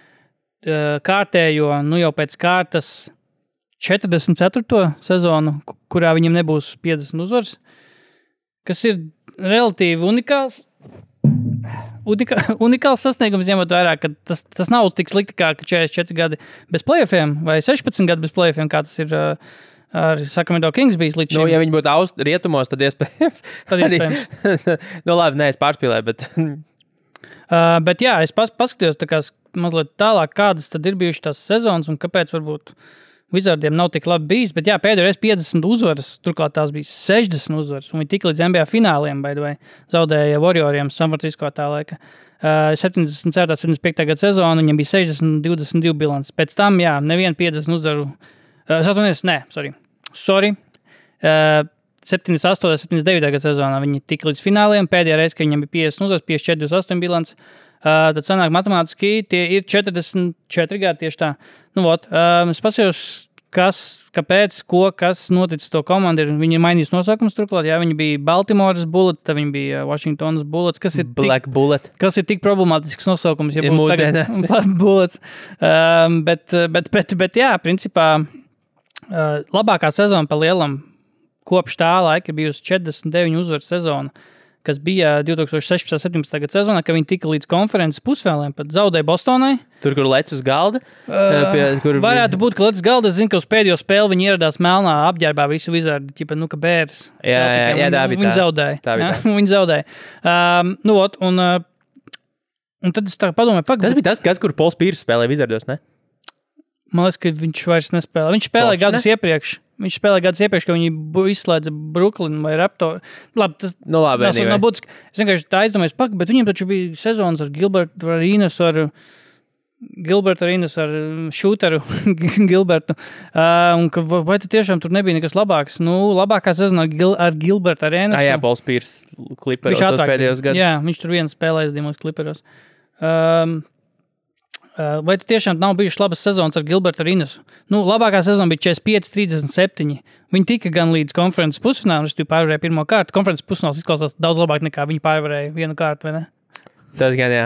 D: kārtējo, jau pēc kārtas 44. sezonu, kurā viņam nebūs 50 uzvaras, kas ir relatīvi unikāls sasniegums, ņemot vērā, ka tas nav tik slikti kā 44 gadi bez playoffiem vai 16 gadi bez playoffiem, kā tas ir ar Sacramento Kings bijis līdz šim.
C: Ja viņi būtu rietumos, tad iespējams. Labi, es pārspīlēju, bet...
D: bet jā, es paskatījos tā kā mazliet tālāk, kādas tad ir bijušas tās sezonas un kāpēc varbūt Wizardiem nav tik labi bijis, bet jā, pēdējais 50 uzvaras, turklāt tās bija 60 uzvaras, un viņi tik līdz NBA fināliem, zaudēja Warrioriem San Francisco tā laika. 74. 75. gada sezona, viņam bija 60-22 bilants. Pēc tam, jā, nevienu 50 uzvaru. 78. 78. 79. gada sezonā viņi tika līdz fināliem, pēdējā reize, ka viņam bija 50 uzvaras, 54-28 bilants. Tad sanāk matemātiski, tie ir 44 gadi tieši tā. Es paskatījos, kāpēc, kas noticis to komandu. Viņi ir mainījis nosaukums turklāt. Jā, viņi bija Baltimore's Bullets, tad viņi bija Washington's Bullets, kas ir tik problemātisks nosaukums. Ja
C: mūsdienās.
D: Bullets. Bet jā, principā labākā sezona pa lielam kopš tā laika ir bijusi 49 uzvaru sezona, kas bija 2016-17. gada sezonā, kad viņi tika līdz konferences pusfināliem, pat zaudēja Bostonai.
C: Tur, kur lec uz galda?
D: Varētu būt, ka lec uz galda. Es zinu, ka uz pēdējo spēli viņi ieradās melnā apģērbā visi Wizardi, kā bērs.
C: Jā,
D: viņi zaudēja. Viņi zaudēja. Un tad es tā padomāju,
C: tas bija tas gads, kur Pols Pīrs spēlēja Wizardos, ne?
D: Man liekas, ka viņš vairs nespēlē. Viņš spēlēja gadus iepriekš. Ka viņi izslēdza Brooklyn vai Raptor. Labi, tas nav būtiski. Es vienkārši tā aizdomājos, bet viņiem taču bija sezonas ar Gilbertu Arenas, ar Shooteru Gilbertu. Vai tad tiešām tur nebija nekas labāks? Labākā sezona ar Gilbertu Arenas.
C: Jā, Pols Pīrs Clipperos tos pēdējos gadus.
D: Jā, viņš tur viens spēlējas Dimos Clipperos. Vai tu tiešām nav bijušas labas sezonas ar Gilbertu Arenasu? Labākā sezona bija 45-37. Viņi tika gan līdz konferences pusfinālam, viņi pārvarēja pirmo kārtu. Konferences pusfināls izklausās daudz labāk nekā viņi pārvarēja vienu kārtu, vai ne?
C: Tas gan, jā.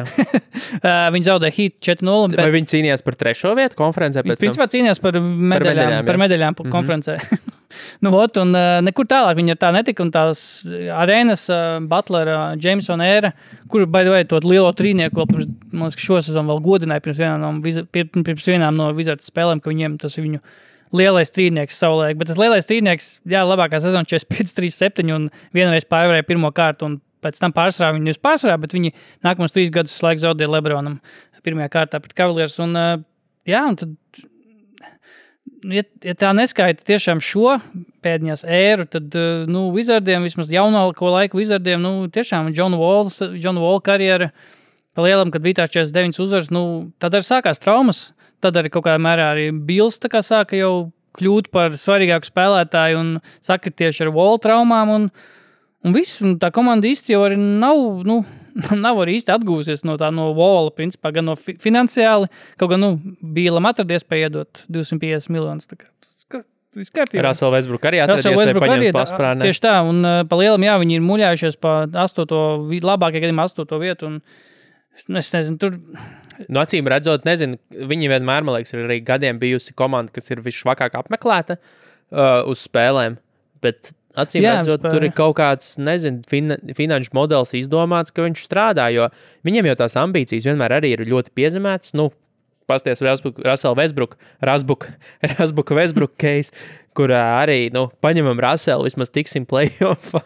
D: Viņi zaudēja Heat 4-0.
C: Vai viņi cīnījās par 3. vietu konferencē?
D: Viņi principā cīnījās par medaļām konferencē. Nekur tālāk viņi ar tā netika, un tās Arenas, Butlera, Jamesona ēra, kuru, by the way, to lielo trīnieku vēl pirms, man liekas, šo sezonu vēl godināja pirms vienām no Wizards spēlēm, ka viņiem tas ir viņu lielais trīnieks savulaik. Bet tas lielais trīnieks, jā, labākā sezona 45-37 un vienreiz pārvarēja pirmo kārtu, un pēc tam pārsvarā viņi nevis pārsvarā, bet viņi nākamos 3 gadus laika zaudēja Lebronam pirmajā kārtā pret Cavaliers. Un tad ja tā neskaita tiešām šo pēdējās ēru, tad Wizardiem, vismaz jaunāko laiku Wizardiem, tiešām John Wall karjera pa lielam, kad bija tās 49 uzvaras, tad arī sākās traumas, tad arī kaut kādā mērā arī Bills tā kā sāka jau kļūt par svarīgāku spēlētāju un sakritieši ar Wall traumām un viss, un tā komanda īsti jau arī nav nav arī īsti atgūsies no vola, principā, gan no finansiāli, kaut gan, bija Lamar iespēja iedot 250 miljonus. Tā kā viss kārtībā.
C: Russell Westbrook arī atradies, iespēja paņemt pasprānē.
D: Tieši tā, un pa lielam, jā, viņi ir muļājušies pa 8. labākajā gadījumā 8. vietu, un es nezinu, tur...
C: Acīm redzot, nezinu, viņi vienmēr, man liekas, ir arī gadiem bijusi komanda, kas ir visšvakāk apmeklēta uz spēlēm, bet acīm redzot, tur ir kaut kāds, nezinu, finanšu modelis izdomāts, ka viņš strādā, jo viņiem jau tās ambīcijas vienmēr arī ir ļoti piezemētas, pasties Russell Westbrook case, kur arī, paņemam Russellu, vismaz tiksim playoffā.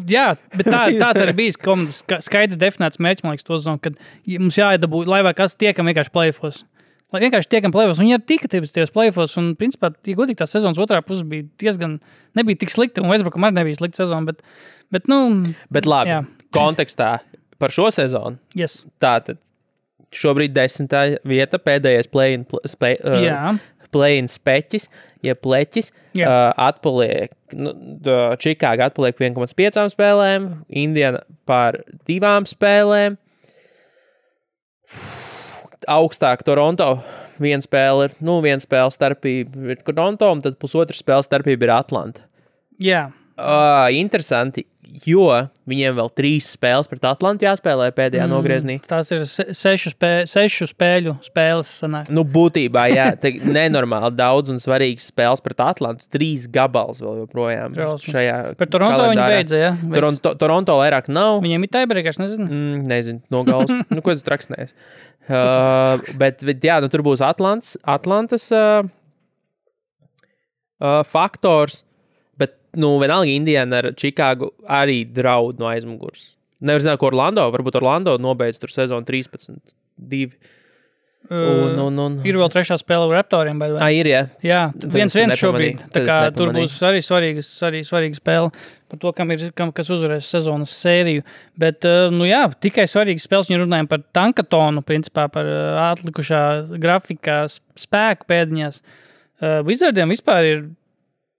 D: Jā, bet tāds arī bijis komandas skaidrs definēts mērķis, man liekas, to zonu, kad mums jāiedabū, lai vai kas tiekam vienkārši playoffos. Lai vienkārši tiekam playoffos, un viņi arī tika tajos playoffos, un principā, ja godīgi tā sezonas otrā puse bija diezgan, nebija tik slikta, un Westbrookam arī nebija slikta sezona,
C: Bet labi, jā. Kontekstā par šo sezonu, tātad šobrīd 10. vieta, pēdējais play-in speķis, ja pleķis, atpaliek, Čikāga atpaliek 1,5 spēlēm, Indiana par 2 spēlēm, augstāk Toronto, 1 spēle starpība ir Toronto, un tad 1,5 spēle starpība ir Atlanta.
D: Jā.
C: Interesanti, jo viņiem vēl 3 spēles pret Atlantu jāspēlē pēdējā nogrieznī.
D: Tās ir 6 spēļu spēles sanāk.
C: Būtībā, jā, nenormāli daudz un svarīgas spēles pret Atlantu. 3 gabals vēl joprojām šajā
D: par Toronto
C: kalendārā.
D: Viņi beidza, jā?
C: Toronto vairāk nav.
D: Viņiem ir tiebreakers, nezinu?
C: Nezinu, no galas. Ko tas traksnēs? Bet jā, tur būs Atlantas faktors. Bet, vienalga Indiana ar Čikāgu arī draud no aizmugurs. Nevar zināt, ko varbūt Orlando nobeidz tur sezonu 13-2.
D: Ir vēl 3. spēle ar Raptoriem, vai?
C: Ir, jā.
D: Jā, 1-1 šobrīd. Tā kā tur būs arī svarīga spēle par to, kas uzvarēs sezonas sēriju. Bet, tikai svarīgas spēles, ja runājam par tankatonu, principā par atlikušā grafikā spēku pēdiņās. Wizardiem vispār ir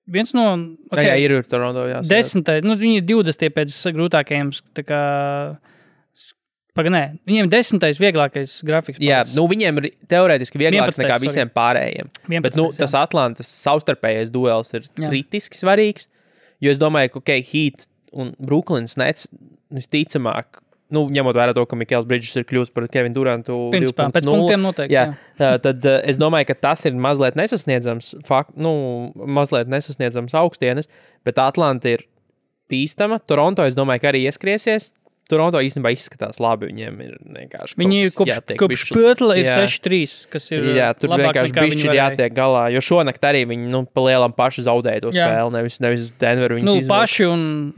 D: viens no...
C: Okay, jā, ir Toronto, jā.
D: 10. Viņi ir 20. pēc grūtākajiem, tā kā... Viņiem 10. vieglākais grafiks.
C: Jā, viņiem ir teorētiski vieglāks nekā visiem pārējiem.
D: 11,
C: bet, tas Atlantas savstarpējais duels ir kritiski svarīgs, jo es domāju, ka, Heat un Brooklyns Nets visticamāk, ņemot vērā to, ka Mikels Bridges ir kļūst par Kevinu Durantu 2.0.
D: Pēc punktiem noteikti, jā.
C: Tad es domāju, ka tas ir mazliet nesasniedzams augstienes, bet Atlanta ir bīstama. Toronto, es domāju, ka arī ieskriesies. Toronto īstenībā izskatās labi, viņiem ir vienkārši
D: viņi kopš Pötla ir 6-3, kas ir
C: jā, tur vienkārši bišķi ir jātiek galā, jo šonakt arī viņi, pa lielam paši zaudēja to spēli, nevis Denveru viņas izvēl.
D: Paši un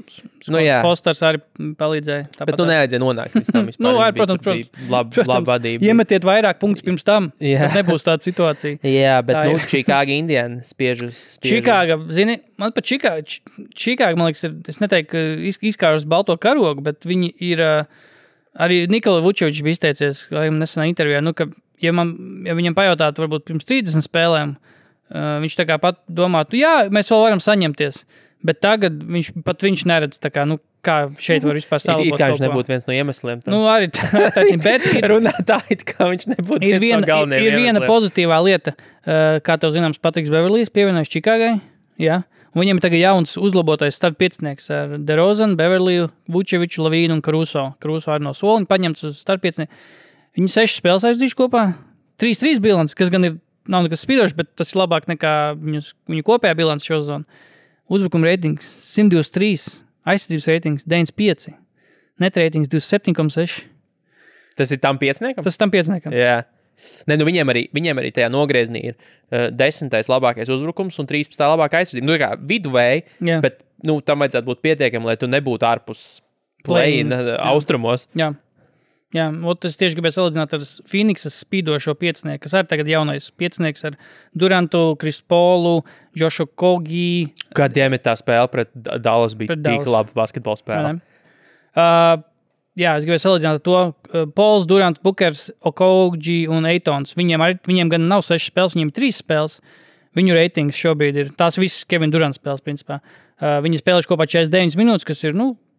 D: Fosters arī palīdzēja.
C: Bet nevajadzēja nonākt līdz tam vispār.
D: Protams.
C: Laba vadība.
D: Iemetiet vairāk punktus pirms tam, tad nebūs tāda situācija.
C: Jā, bet Čikāga Indiana spiež.
D: Čikāga, zini, man pat Čikāga, man liekas, es neteiktu, ka izkārus balto karogu, bet viņi ir arī Nikola Vučevičs bija izteicies nesenā intervijā, ka, ja viņam pajautātu varbūt pirms 30 spēlēm, viņš tā kā pat domātu, jā, mēs vēl varam saņemties, bet tagad viņš neredz tā kā, kā šeit var vispār salabot.
C: It kā viņš nebūtu viens no iemesliem.
D: Arī taisnība, bet
C: runā tā, it kā viņš nebūtu viens no galvenajiem iemesliem.
D: Ir viena pozitīvā lieta, kā tev zināms, Patriks Beverlijs pievienojas Čikāgai, jā. Viņiem ir tagad jauns uzlabotais starppiecinieks ar DeRozanu, Beverliju, Vučeviču, Lavīnu un Karuso. Karuso arī no soliņa paņemts uz starppiecinieku. Viņi 6 spēles aizdījuši kopā. 3-3 bilants, kas gan nav nekas spīdošs, bet tas ir labāk nekā viņu kopējā bilants šo zonu. Uzbrukuma reitings 123, aizsardzības reitings 95, net reitings 27,6.
C: Tas ir tam pieciniekam?
D: Tas tam pieciniekam.
C: Jā. Viņiem arī tajā nogrieznī ir 10. labākais uzbrukums un 13. labākā aizsardzība. Kā viduvēji, bet tam vajadzētu būt pietiekami, lai tu nebūtu ārpus play-in austrumos.
D: Jā, es tieši gribēju salīdzināt ar Phoenixas spīdošo piecinieku, kas arī tagad jaunais piecinieks ar Durantu, Chris Paulu, Joshu Kogi.
C: Kādiem ir tā spēle pret Dallas bija tik laba basketbola spēle?
D: Jā, es gribēju salīdzināt to Pauls, Durants, Bukers, Okogi un Eitons. Viņiem gan nav 6 spēles, viņiem 3 spēles. Viņu reitings šobrīd ir tās visas Kevin Durants spēles, principā. Viņi spēlējuši kopā 49 minūtes, kas ir,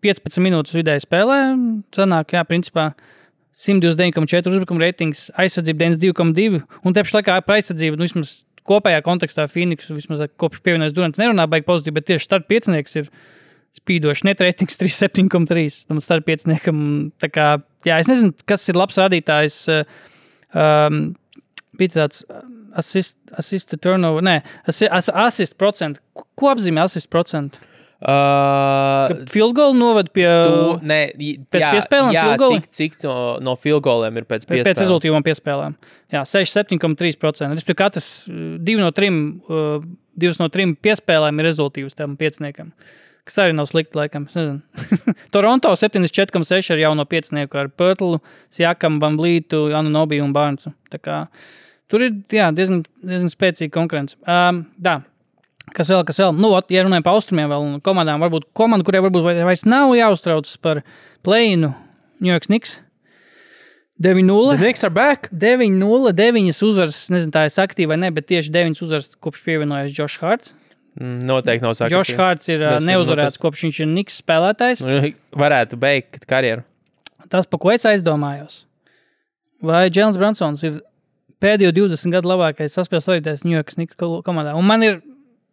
D: 15 minūtes vidēji spēlē. Sanāk, jā, principā 129,4 uzbrukuma reitings, aizsardzība 92,2 un te pašā laikā par aizsardzību, vismaz kopējā kontekstā Phoenix, vismaz kopš pievienojas Durants nerunā baigi pozitīvi, bet tieši starp piecinieks ir spīdoši net reitings 37,3. Tam starp pieciniekam, tā kā, jā, es nezinu, kas ir labs rādītājs, bija tāds assist to turnover, assist procentu. Ko apzīmē assist procentu? Field goal novad pie pēc piespēlēm field goal?
C: Cik no field goaliem ir pēc piespēlēm? Pēc
D: rezultīvām piespēlēm. Jā, 67,3%. Respektīvi, katrs 2 no 3 piespēlēm ir rezultīvs tam pieciniekam. Kas arī nav slikti, laikam. Toronto 74,6 ar jauno piecinieku ar Pörtlu, Siakam, Van Vlītu, Anunobi un Barnesu. Tā kā tur ir, jā, diezgan spēcīga konkurence. Kas vēl? Nu, ja runājam pa austrumiem vēl komandām, varbūt komanda, kurai varbūt vairs nav jāuztraucas par play-inu, New York Knicks. 9-0.
C: The Knicks are back.
D: 9-0, 9 uzvaras, nezinu, tā es aktīvi vai ne, bet tieši 9 uzvaras kopš pievienojas Josh Harts.
C: Noteikti nav sakti.
D: Josh Harts ir neuzvarēts, kopš viņš ir Knicks spēlētājs.
C: Varētu beigt karjeru.
D: Tas, pa ko es aizdomājos. Vai Jēlens Brunsons ir pēdējo 20 gadu labākais saspēles vadītājs New York Knicks komandā? Un man ir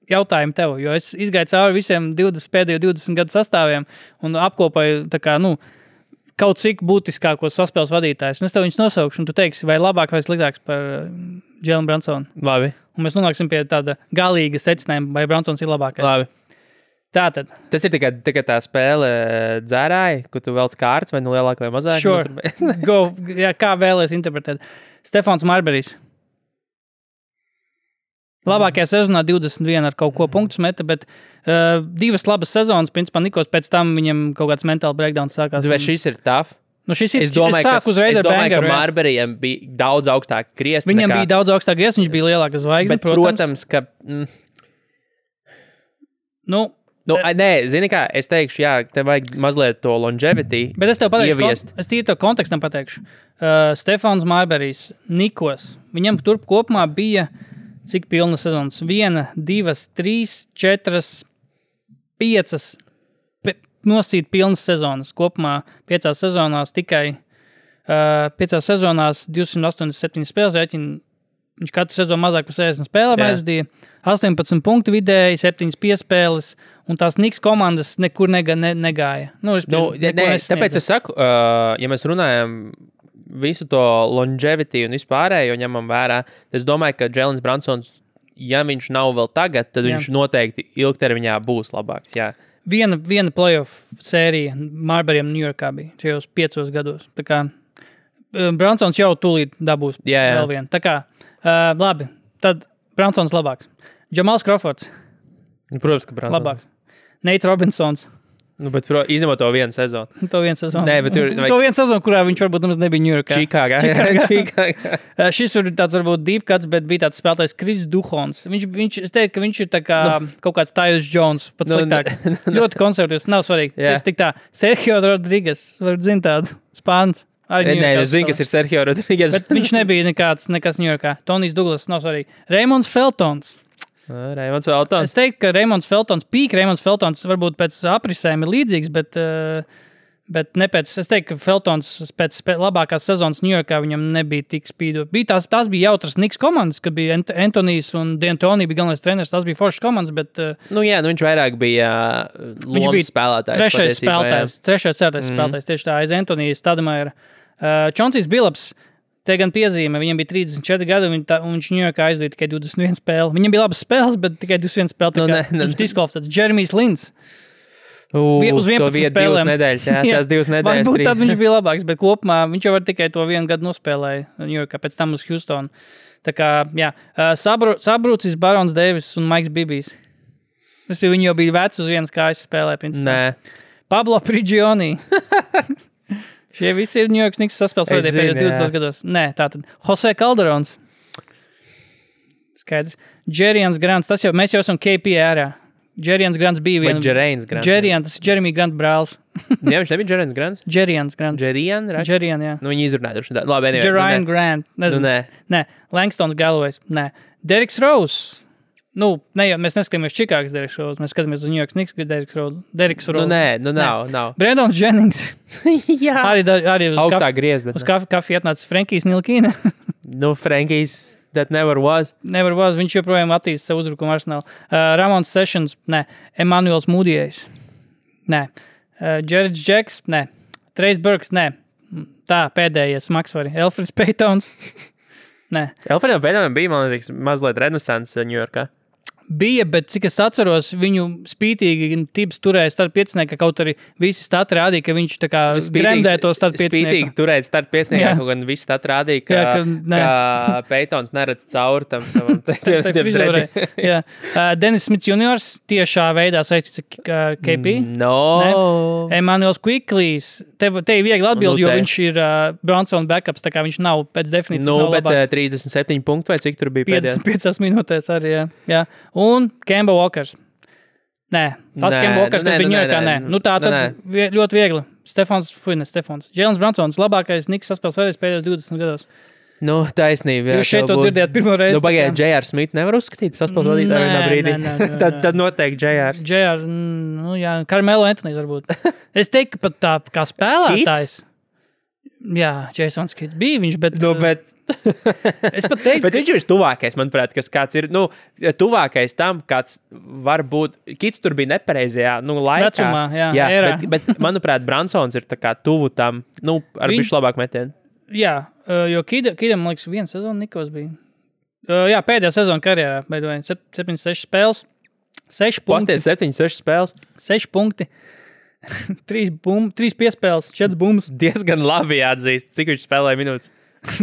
D: jautājumu tev, jo es izgāju cauri visiem pēdējo 20 gadu sastāviem un apkopoju tā kā, kaut cik būtiskākos saspēles vadītājus. Un es tev viņus nosaukšu, un tu teiksi, vai labāk vai sliktāks par Jēlenu Brunsonu.
C: Labi.
D: Un mēs nonāksim pie tāda galīga secinājuma, vai Brunsons ir labākais.
C: Labi.
D: Tātad.
C: Tas ir tikai tā spēle dzērāji, kur tu velc kārts, vai lielāk vai mazāk?
D: Sure. Go, jā, kā vēlies interpretēt. Stefans Marburijs. Labākajā sezonā 21 ar kaut ko punktus meta, bet 2 labas sezonas, principā Nikos pēc tam viņam kaut kāds mentāli breakdowns sākās.
C: Vai šis ir tough?
D: Nu šis ir, es domāju,
C: ka Marburijam bija daudz augstāk griezti.
D: Viņam bija daudz augstāk griezti, viņš bija lielāka zvaigzne,
C: protams, ka... Nē, zini kā, es teikšu, jā, tev vajag mazliet to longevity
D: bet es tev pateikšu,
C: ieviest.
D: Es tīri to kontekstam pateikšu. Stefans Marburijs, Nikos, viņam turp kopumā bija cik pilna sezonas? 1, 2, 3, 4, 5 nosīt pilnas sezonas. Kopumā 5 sezonās tikai 5 sezonās 287 spēles rēķina. Viņš katru sezonu mazāk par 60 spēlēm aizvadīja. 18 punktu vidēji, 7 piespēles, un tās Knicks komandas nekur negāja.
C: Tāpēc es saku, ja mēs runājam visu to longevity un vispārējo ņemam vērā, es domāju, ka Jēlens Brunsons, ja viņš nav vēl tagad, tad viņš noteikti ilgtermiņā būs labāks, jā.
D: Viena playoff sērija Marburijam New Yorkā bija šajos 5 gados. Tā kā Brunsons jau tūlīt dabūs vēl vienu. Tā kā, labi, tad Brunsons labāks. Jamals Crawfords.
C: Protams, ka Brunsons.
D: Labāks. Nate Robinsons.
C: Bet izņemot to vienu sezonu.
D: To vienu sezonu.
C: Nē, bet
D: to vienu sezonu, kurā viņš varbūt nemaz nebija New Yorkā.
C: Čikāgā.
D: Šis ir tāds varbūt deep cuts, bet bija tāds spēlētājs Kris Duhons. Es teiktu, ka viņš ir tā kā kaut kāds Tyus Jones, pats sliktāks. Ļoti konservatīvs, nav svarīgi. Tas tik tā, Sergio Rodriguez, varbūt zin tādu, Spāns.
C: Nē, es zinu, kas ir Sergio Rodriguez.
D: Bet viņš nebija nekas New Yorkā. Tonijs Douglas, nav svarīgi. Raimonds Feltons.
C: Raimonds Feltons.
D: Es teiktu, ka Raimonds Feltons varbūt pēc aprisēm ir līdzīgs, bet ne pēc. Es teiktu, ka Feltons pēc labākās sezonas New Yorkā viņam nebija tik spīdot. Tās bija jautras Knicks komandas, kad bija Antonijs un D'Antoni bija galvenais treneris. Tās bija foršas komandas, bet...
C: viņš vairāk bija lomas spēlētājs.
D: Trešais spēlētājs, tieši tā, aiz Antonijas Stademaiera. Čonsijs Billups. Te gan piezīme, viņam bija 34 gadi, un viņš New Yorkā aizvīja tikai 21 spēli. Viņam bija labas spēles, bet tikai 21 spēli. Viņš diskvalificēts. Jeremijs Lins. Uz 11 spēlēm.
C: Nedēļas, tās 2 nedēļas.
D: Varbūt tad viņš bija labāks, bet kopumā viņš jau var tikai to 1 gadu nospēlēja New Yorkā, pēc tam uz Houstonu. Tā kā, jā. Sabrūcis Barons Davis un Maiks Bibijs. Viņi jau bija veci uz vienas kājas spēlē, principā.
C: Nē.
D: Pablo Prigioni. Šie visi ir New York Knicks saspēles vadīja pēdējos 20 gados. Nē, tātad. Jose Calderons. Skaidrs. Jerians Grants. Mēs jau esam KP ērā. Jerians Grants bija viena.
C: Jerians Grants.
D: Tas ir Jeremy Grant brālis.
C: Jā, viņš nebija Jerians Grants?
D: Jerians Grants.
C: Jerian,
D: jā.
C: Viņi izrunāja droši. Labi,
D: Jerian Grant. Nezinu. Nē. Langstons Galloways. Nē. Derriks Rose. mēs neskatāmies Čikāgas Deriks Rose, mēs skatāmies uz New York Knicks Deriks Rose.
C: Nav.
D: Brandons Jennings.
C: Jā.
D: Arī uz
C: Augstā griezda.
D: Uz kafiju atnāca Frankijs Nilkīna.
C: Frankijs that never was.
D: Never was. Viņš joprojām attīsta savu uzbrukumu arsenālu. Ramons Sessions, nē. Emanuels Mūdijais, nē. Jared Jacks, nē. Trace Burks, nē. Tā, pēdējais maksvari. Elfrids Paytons, nē.
C: Elfridam Pēteram bija, man liekas, mazliet renesans Ņujorkā.
D: Bija, bet cik es atceros, viņu spītīgi tips turēja starp piecinieka, kaut arī visi stati rādīja, ka viņš tā kā gremdē to starp piecinieku.
C: Spītīgi turēt starp pieciniekā, kaut gan visi stati rādīja, ka Pētons neredz cauri tam savam.
D: Dennis Smits juniors tiešā veidā saistīts ar KP.
C: No.
D: Emanuels Quickleys. Te ir viegli atbildi, jo viņš ir Brunson backups, tā kā viņš nav pēc definīcijas nav labāks.
C: 37 punktu vai cik tur bija pēdējā?
D: 5 minūtēs arī, jā. Un Kemba Walkers. Nē, Kemba Walkers, kas bija Ņujorkā, nē. Tā tad ļoti viegli. Stefans. Jēlens Brunsons, labākais Knicks saspēles vērējs pēdējos 20 gados.
C: Taisnība.
D: Jūs šeit to dzirdējāt pirmo reizi.
C: Pagaidā, J.R. Smith nevar uzskatīt saspēles vadītāju vienā brīdī. Tad noteikti J.R.
D: Jā, Carmelo Anthony varbūt. Es teiktu, ka pat tā kā spēlētājs. Jā, Jasons Kidd bija viņš, bet... Es pat teiktu...
C: Bet viņš ir tuvākais, manuprāt, kas kāds ir, tuvākais tam, kāds var būt... Kids tur bija nepareizajā, laikā.
D: Vecumā, jā
C: bet, manuprāt, Brunsons ir tā kā tuvu tam, ar bišķi labāk metienu.
D: Jā, jo Kiddam, man liekas, viena sezona Nikos bija. Jā, pēdējā sezona karjerā, beidoja 7-6 spēles, 6 punkti.
C: Pasties 7-6 spēles.
D: 6 punkti. 3 piespēles, 4 bumbas.
C: Diezgan labi jāatzīst, cik viņš spēlēja minūtes.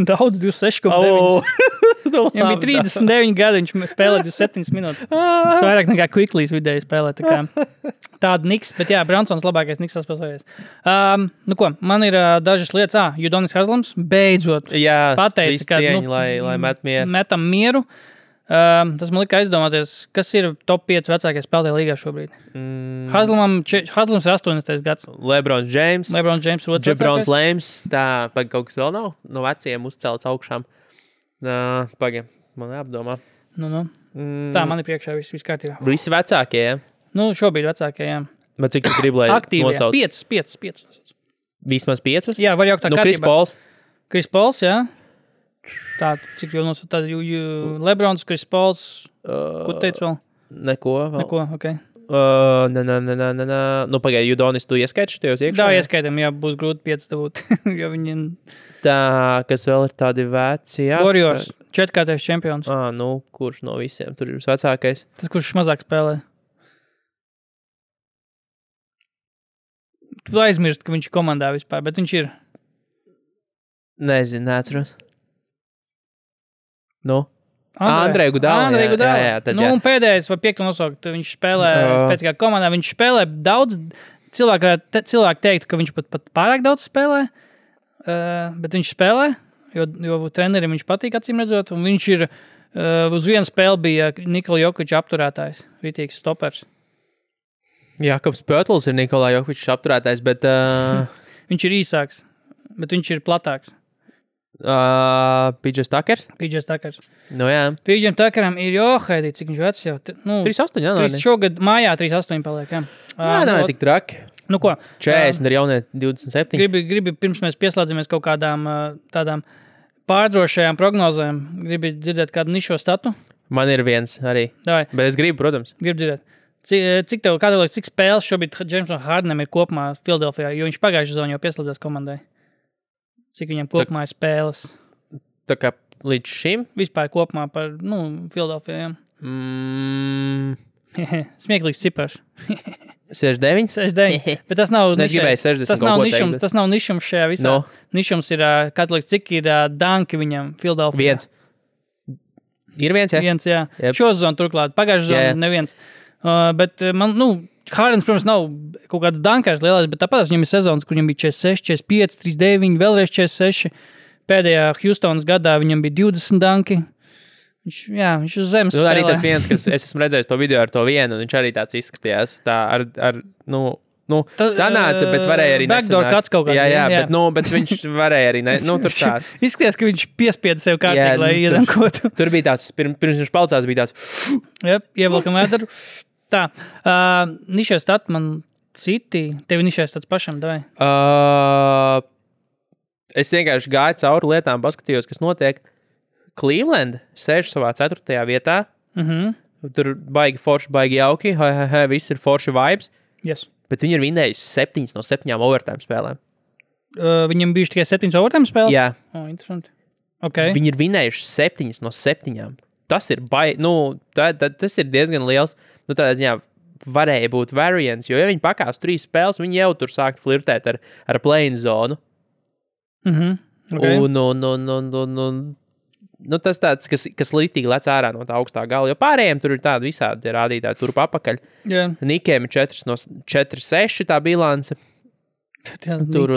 D: Daudz, 26,9. Viņam bija 39 gadi, viņš spēlēja 27 minūtes. Tas vairāk nekā Quickleys vidēji spēlē. Tāda Knicks, bet jā, Brunsons labākais Knicks saspēlējies. Man ir dažas lietas. Udonis Haslams beidzot pateica, ka
C: lai met mieru.
D: Metam mieru. Tas man lika aizdomāties, kas ir top 5 vecākie spēlētāji līgā šobrīd. Haslams ir 80. gads.
C: LeBron James ir otrs vecākais. Jabrons Lēms, kaut kas vēl nav no veciem uzcelts augšām. Man jāapdomā.
D: Tā, man ir priekšā viss kārtībā.
C: Visi vecākie, jā?
D: Šobrīd vecākie, jā.
C: Bet cik tu gribi, lai nosauc?
D: 5.
C: Vismaz 5?
D: Jā, var jaukt tā kārtībā. Chris Pauls, jā. Tā, cik jau nosauc tādu Lebrons, Chris Pauls, ko teicu vēl?
C: Neko,
D: ok.
C: Pagaidi, Udonis, tu ieskaiti šajos iekšā?
D: Tā, ieskaitam, jā, būs grūti 5 dabūt, jo viņi...
C: Tā, kas vēl ir tādi veci, jā?
D: Warriors, 4-kārtais čempions.
C: Kurš no visiem tur ir vecākais?
D: Tas, kurš mazāk spēlē. Tu aizmirst, ka viņš ir komandā vispār, bet viņš ir.
C: Nezinu, neatceros. Andrej Gudala.
D: Un pēdējais vai 5 nosaukt, viņš spēlē spēcīgā komandā, viņš spēlē daudz, cilvēki teikt, ka viņš pat pārāk daudz spēlē, bet viņš spēlē, jo trenerim viņš patīk acīm redzot, un viņš ir, uz vienu spēli bija Nikola Jokiča apturētājs, ritīgs stopers.
C: Jakobs Pötls ir Nikola Jokiča apturētājs, bet...
D: Viņš ir īsāks, bet viņš ir platāks.
C: PJ Tuckers? Jā.
D: PJ Tuckeram ir Haidī, cik viņš vecs jau.
C: 38, jā.
D: Šogad mājā 38 paliek, jā.
C: Nav tik traki.
D: Ko?
C: 40 ar jaunie 27.
D: Gribi pirms mēs pieslēdzamies kaut kādām tādām pārdrošajām prognozēm. Gribi dzirdēt kādu nišo statu?
C: Man ir viens arī.
D: Davai.
C: Bet es gribu, protams.
D: Gribu dzirdēt. Cik spēles šobrīd Jamesam Hardenam ir kopumā Filadelfijā, jo viņš pagājušajā sezonā jau pieslēdzās komandai? Cik viņam kopumā ir spēles?
C: Tā kā līdz šim?
D: Vispār kopumā par, Filadelfijā. Smieklīgs cipars.
C: 69?
D: 69. Bet tas nav
C: nišums.
D: Tas nav nišums šajā visā. Nišums ir, cik ir danki viņam Filadelfijā?
C: 1. Ir viens, jā?
D: Viens, jā.
C: Yep.
D: Šo sezonu turklāt. Pagājušajā sezonu neviens. Bet man, Hardens, protams, nav kaut kāds dankārs lielais, bet tāpat viņam ir sezonas, kur viņam bija 46, 45, 39, vēlreiz 46. Pēdējā Houstonas gadā viņam bija 20 danki. Viņš uz zemes spēlē.
C: Arī tas viens, kas es esmu redzējis to video ar to vienu, un viņš arī tāds izskatījās. Tā ar sanāca, bet varēja arī
D: backdoor
C: nesanākt.
D: cuts kaut kāds.
C: Jā. Bet viņš varēja arī, tur tāds.
D: Izskaties, ka viņš piespieda sev kārtīgi, lai iedankotu.
C: Tur bija tāds, pirms viņš palcās, bija tāds.
D: Ievelkam vēdaru. Tā, nišais stat man citi, tevi nišais stats pašam, davai?
C: Es vienkārši gāju cauri lietām, paskatījos, kas notiek. Cleveland sēž savā 4. vietā. Tur baigi forši, baigi jauki. Viss ir forši vibes.
D: Yes.
C: Bet viņi ir vinnējuši 7 no 7 overtime spēlēm.
D: Viņam bijuši tikai 7 overtime spēles?
C: Jā.
D: Interesanti. Okay.
C: Viņi ir vinnējuši 7 no 7. Tas ir tas ir diezgan liels. Tādā ziņā varēja būt variants, jo ja viņi pakās 3 spēles, viņi jau tur sākt flirtēt ar play-in zonu.
D: Okay.
C: Tas tāds, kas litīgi lec ārā no tā augstā gala, jo pārējiem tur ir tādi visādi rādītāji turp apakaļ.
D: Yeah.
C: Nikiem ir 4-6 tā bilance. Tur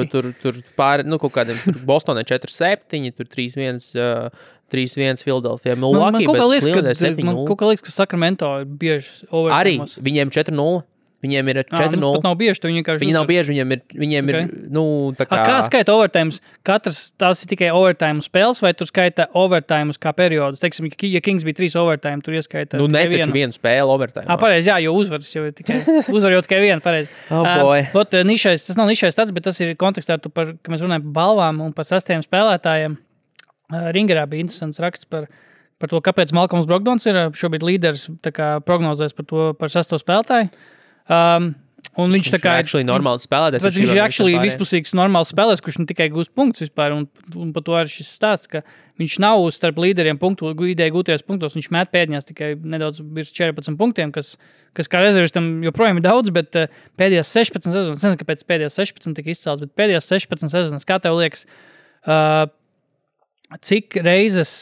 C: pāri, kaut kādiem, tur Bostonē 4-7, tur 3-1 Philadelphia, Milwaukee, bet Clevelandē 7-0.
D: Man kaut kā liekas, ka Sacramento ir bieži overtime.
C: Arī viņiem 4-0. Viņiem ir 4-0.
D: Pat nav bieži, viņi
C: nav bieži, viņiem ir, tā kā...
D: Kā skaita overtimes? Tās ir tikai overtime spēles, vai tur skaita overtimes kā periodus? Teiksim, ja Kings bija 3 overtime, tur ieskaita
C: netaču vienu spēli overtime.
D: Pareizi, jā, jo uzvaras jau ir tikai, uzvar jau tikai vienu, pareizi. Tas nav nišais tāds, bet tas ir kontekstā, ka mēs runājam par balvām un par 6 spēlētājiem. Ringerā bija interesants raksts par to, kāpēc Malcolms Brogdons ir šobrīd līderis, tā kā prognozēs par 6 spēlētāju. Un viņš tā kā
C: actually normāls spēlētājs.
D: Viņš ir actually vispusīgs normāls spēlētājs, kurš ne tikai gūst punktus vispār, un par to arī šis stāsts, ka viņš nav starp līderiem ideja gūtajos punktos, viņš met pēdējās tikai nedaudz virs 14 punktiem, kas kā rezervistam joprojām ir daudz, bet pēdējās 16 sezonas, es nezinu, kāpēc pēdējās 16 tika izcelts, bet pēdējās 16 sezonas, kā tev liekas, cik reizes